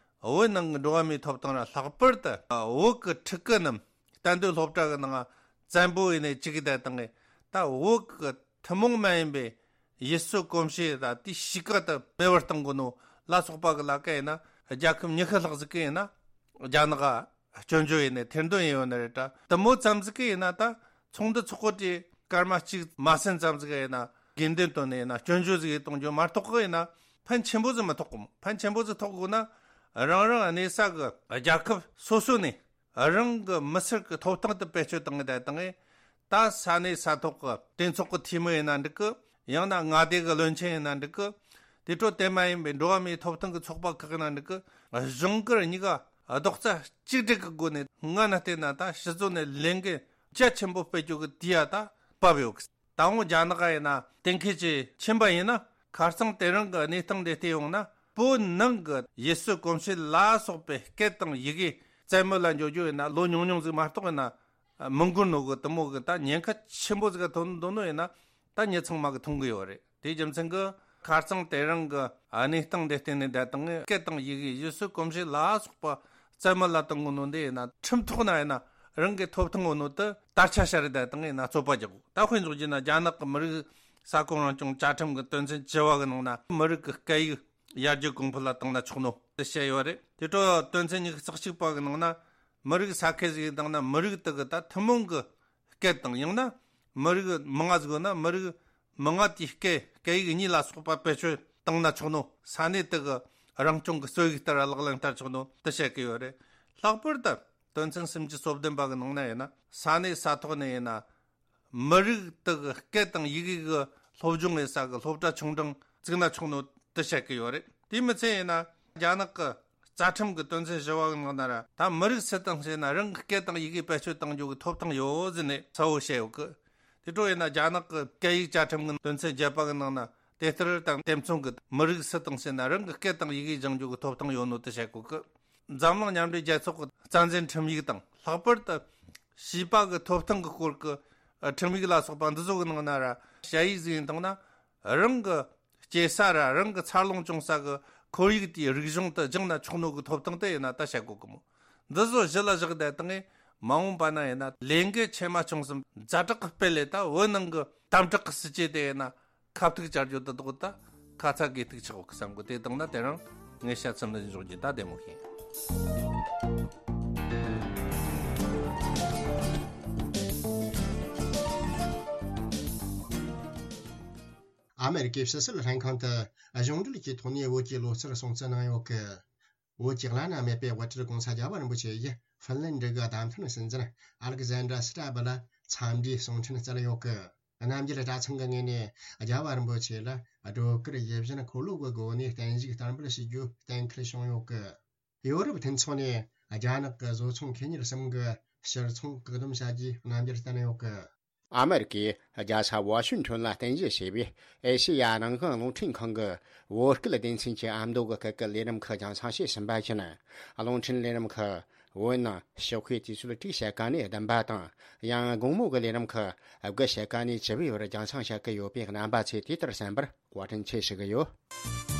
བོད་ནང་གི་འགྲོ་བ་མིའི་ཐོབ་ཐང་ར་ལྷག་པར་དུ་བོད་གི་ཕྲུ་གུ་རྣམས་གཏན་སྡོད་སློབ་གྲྭ་གི་ནང་བཙན་པོ་ཡིན་ནས་བཅུག་གི་ད་དང་ངས་ད་བོད་གི་ཐུན་མོང་མ་ཡིན་པའི་ཡུལ་སྲོལ་གོམས་གཤིས་དང་དེའི་གཤིས་ཀ་དེ་མེད་པར་གཏོང་དགོས་ནོ་ལ་སོགས་པ་གི་ལ་ཀ་ཡིན་ན་རྒྱལ་ཁབ་ཉི་ཤུ་ལྷག་ཟིག་གི་ཡིན་ན་རྒྱ་ནག་ག་སྐྱོན་བརྗོད་ཡིན་ནས་ཐེར་འདོན་ཡིན་ཡོད་ནི་རེད་ད། དེ་མོ་ཙམ་ཟིག་གི་ཡིན་ན་ད་ཚོགས་འདུ་ཚོགས་གོ་དེ་སྐར་མ་གཅིག་མ་ཟིན་ཙམ་ཟིག་ཡིན་ན་དགོས་འདུན་བཏོན་ནས་ཡིན་ན་སྐྱོན་བརྗོད་ཟིག་གཏོང་རྒྱུ་མ་གཏོགས་གི་ཡིན་ན་ཕན་ཆེན་པོ་ཟིག་མི་ཐོགས་གོ། ཕན་ཆེན་པོ་ཟིག་ཐོགས་དགོས་ན་རང་རང་གནས་ས་གི་རྒྱལ་ཁབ་སོ་སོ་ནས་རང་གི་མི་སེར་གི་ཐོབ་ཐང་དེ་བེད་སྤྱོད་བཏང་གི་ད་དང་ངས་ད་ས་གནས་ས་ཐོག་གི་གྲོས་ཚོགས་ཀྱི་འཐུས་མི་ཡིན་ན་འགྲིག་གི། ཡང་ན་མངའ་སྡེ་གི་བློན་ཆེན་ཡིན་ན་འགྲིག་གི། དེ་འཕྲོ་དེ་མ་ཡིན་པའི་འགྲོ་བ་མིའི་ཐོབ་ཐང་གི་ཚོགས་པ་ཁག་ཡིན་ན་འགྲིག་གི། གཞུང་སྒེར་གཉིས་ཀ་རྡོག་རྩ་གཅིག་སྒྲིལ་གྱི་སྒོ་ནས་སྔ་ན་བལྟས་ན་ད་སྤྱི་ཚོགས་ནས་ལས་འགན་རྒྱ་ཆེན་པོ་སྤེལ་རྒྱུ་གི་དུས་ཡ་ད་བབ་ཡོད་གི། ད་འོང་རྒྱ་ནག་ཡིན་ན་གཏན་འཁེལ་གྱི་ཕྱིན་པ་ཡིན་ན་ཁ་རྩང་དེ་རིང་གི་གནས་སྟངས་འདི་བལྟས་ཡོང་ན་བོད་ནང་གི་ཡུལ་སྲོལ་གོམས་གཤིས་ལ་སོགས་པའི་སྐད་དང་ཡི་གེ་རྩ་མེད་ལ་འཇོག་རྒྱུ་ཡིན་ན་ལོ་ཉུང་ཉུང་ཟིག་མ་གཏོགས་ཡིན་ན་མི་འགོར་ནོ་གི། དེ་མོ་གི་ད་ཉེན་ཁ་ཆེན་པོ་ཟིག་ག་ཐོན་འདུག་ནོ་ཡིན་ན་ད་མྱི་ཚང་མ་གི་མཐོང་གི་ཡོད་རེད། དེའི་རྒྱུ་མཚན་གི་ཁ་རྩང་དེ་རིང་གི་གནས་སྟངས་འདི་བལྟས་ནས་ད་དང་སྐད་དང་ཡི་གེ་ཡུལ་སྲོལ་གོམས་གཤིས་ལ་སོགས་པ་རྩ་མེད་ལ་གཏོང་གི་ནོ་འདི་ཡིན་ན་ཁྲིམས་ཐོག་ན་ཡིན་ན་རང་གི་ཐོབ་ཐང་ཡོད་ནོ་དེ་དར་ཆ་ཤར་རེད། ད་དང་ཡིན་ན་རྩོད་པ་རྒྱག་དགོས། ད་དཔེ་འཇོག་རྒྱུ་ན་རྒྱ་ནག་གི་མི་རིགས་ས་ཁོངས་རང་སྐྱོང་བཅའ་ཁྲིམས་ཀྱི་དོན་ཚན་བཅུ་བ་གི་ནང་ན་མི་རིགས་ཀྱི་སྐད་ཡིག་ཡར་རྒྱས་གོང་འཕེལ་ལ་བཏང་ན་ཆོག་ནོ་དེ་བཤད་ཡོད་རེད། དེ་འཕྲོ་དོན་ཚན་ཉི་ཤུ་རྩ་གཅིག་པ་གི་ནང་ན་མི་རིགས་ས་ཁུལ་ཟིག་ཡིན་བཏང་ན་མི་རིགས་དེ་གི་ད་ཐུན་མོང་གི་སྐད་དང་ཡང་ན་མི་རིགས་མང་ང་ཟིག་ཡོད་ན་མི་རིགས་མང་ང་དེའི་སྐད་སྐད་ཡིག་གཉིས་ལ་སོགས་པ་བེད་སྤྱོད་བཏང་ན་ཆོག་ནོ། ས་གནས་དེ་གི་རང་སྐྱོང་གི་སྲོལ་ཡིག་ལྟར་ལག་ལེན་བསྟར་ཆོག་ནོ་དེ་བཤད་གི་ཡོད་རེད། ལྷག་པར་དུ་དོན་ཚན་སུམ་ཅུ་སོ་བདུན་པ་གི་ནང་ན་ཡིན་ན་ས་གནས་ས་ཐོག་ནས་ཡིན་ན་མི་རིགས་དག་གི་སྐད་དང་ཡི་གེ་གི་སློབ་སྦྱོང་ཡིན་ས་གི་སློབ་གྲྭ་ཆུང་འབྲིང་བཙུགས་ན་ཆོག་ནོ་དེ་བཤད་གི་ཡོད་རེད། དེ་མི་ཚད་ཡིན་ན་རྒྱ་ནག་གི་རྩ་ཁྲིམས་ཀྱི་དོན་ཚན་བཞི་བ་གི་ནང་ན་ར་ད་མི་རིགས་སུ་དང་ཟེར་ན་རང་གི་སྐད་དང་ཡི་གེ་བེད་སྤྱོད་གཏང་རྒྱུ་གི་ཐོབ་ཐང་ཡོད་ཟེར་ནས་གསལ་བོ་བཤད་ཡོད་གི། དེ་འཕྲོ་ཡིན་ན་རྒྱ་ནག་གི་སྐད་ཡིག་བཅའ་ཁྲིམས་ཀྱི་དོན་ཚན་བརྒྱད་པ་གི་ནང་ན་དེ་ལྟར་དང་དེ་མཚུངས་ཀྱི་མི་རིགས་སུ་དང་ཟེར་ན་རང་གི་སྐད་དང་ཡི་གེ་སྦྱང་རྒྱུ་གི་ཐོབ་ཐང་ཡོད་ནོ་དེ་བཤད་གོ་གི། འཛམ་གླིང་མཉམ་འབྲེལ་རྒྱལ་ཚོགས་ཀྱི་རྩ་འཛིན་ཁྲིམས་ཡིག་དང་ལྷག་པར་དུ་བྱིས་པ་གི་ཐོབ་ཐང་གི་སྐོར་གྱི་ཨ་ཁྲིམས་ཡིག་ལ་སོགས་པ་འདི་ཚོ་གི་ནང་ན་ར་ཞ་ཡིག་ཟིག་ཡིན་བཏང་ན་རང་གི་སྐྱེས་ས་ར་རང་གི་འཚར་ལོངས་བྱུང་ས་གི་ཁོར་ཡུག་དེའི་རིག་གཞུང་དུ་སྦྱངས་ན་ཆོག་ནོ་གི་ཐོབ་ཐང་དེ་ཡིན་ན་ད་བཤད་དགོས་གི་མོ། འདི་ཚོ་གཞི་ལ་བཞག་བསྡད་བཏང་ངས་མ་འོངས་པ་ན་ཡིན་ན་ལས་འགུལ་ཆེ་མ་ཆུང་གསུམ་ཛ་དྲག་གི་སྤེལ་ལས་ད་བོད་ནང་གི་དམ་དྲག་གི་སྲིད་ཇུས་དེ་ཡིན་ན་ཁ་ཐུག་བཅར་རྒྱུ་དེ་དག་ད་ཁ་ཚ་དགོས་གཏུག་ཆགས་འོག་བསམ་གི། དེ་དང་ན་དེ་རིང་ངས་བཤད་ཚུལ་འདི་འཇོག་རྒྱུ་ད་བདེ་མོ་ཤེས། ཨ་མེ་རི་ཀའི་ཕྱི་སྲིད་ལྷན་ཁང་དུ་གཞུང་འབྲེལ་གྱི་ཐོག་ནས་བོད་ཀྱི་ལོ་གསར་སྲུང་བརྩི་གནང་ཡོད་གི། བོད་ཀྱི་བླ་ན་མེད་པའི་དབུ་ཁྲིད་༸གོང་ས་༸རྒྱལ་བ་རིན་པོ་ཆེ་ཡིས་ཧྥིན་ལན་ཌི་གི་བདམས་ཐོན་སྲིད་འཛིན་ཨ་ལེག་ཟན་དྲ་སི་ཏྲ་བུ་ལ་འཚམས་འདྲིའི་གསུང་འཕྲིན་བསྩལ་ཡོད་གི། རྣམ་རྒྱལ་གྲྭ་ཚང་གི་ངོས་ནས་རྒྱལ་བ་རིན་པོ་ཆེ་ལ་སྒྲོལ་དཀར་ཡིད་བཞིན་འཁོར་ལོ་གི་སྒོ་ནས་བརྟན་བཞུགས་བསྟར་འབུལ་ཞུ་རྒྱུ་གཏན་འཁེལ་བྱུང་ཡོད་གི། ཡོ་རོབ་མཐུན་ཚོགས་ནས་རྒྱ་ནག་གི་བཟོ་ཚོང་ཁེ་གཉེར་གསུམ་གི་ཕྱིར་ཚོང་བཀག་སྡོམ་བྱ་རྒྱུའི་རྣམ་འགྱུར་བསྟན་ཡོད་གི། ཨ་མེ་རི་ཀའི་རྒྱལ་ས་ཝ་ཤིང་ཊོན་ལ་རྟེན་གཞི་བྱས་པའི་ཨེ་ཤེ་ཡ་རང་དབང་རླུང་འཕྲིན་ཁང་གི་བོད་སྐད་སྡེ་ཚན་གྱི་ཨ་མདོ་གི་སྐད་ཀྱི་ལས་རིམ་ཁག་རྒྱང་སྲིང་བྱས་ཟིན་པ་བཞིན། རླུང་འཕྲིན་ལས་རིམ་ཁག་བོད་ནང་ཞོགས་ཀའི་དུས་ཚོད་དྲུག་ཕྱེད་ཀ་ནས་བདུན་པ་དང་། ཡང་དགོང་མོ་གི་ལས་རིམ་ཁག་དགུ་ཕྱེད་ཀ་ནས་བཅུ་པའི་བར་རྒྱང་སྲིང་བྱེད་ཀྱི་ཡོད་པས་རྣམ་པ་ཚོས་དེ་ལྟར་གསན་པར་བཀའ་དྲིན་ཆེ་ཞུ་གི་ཡོད།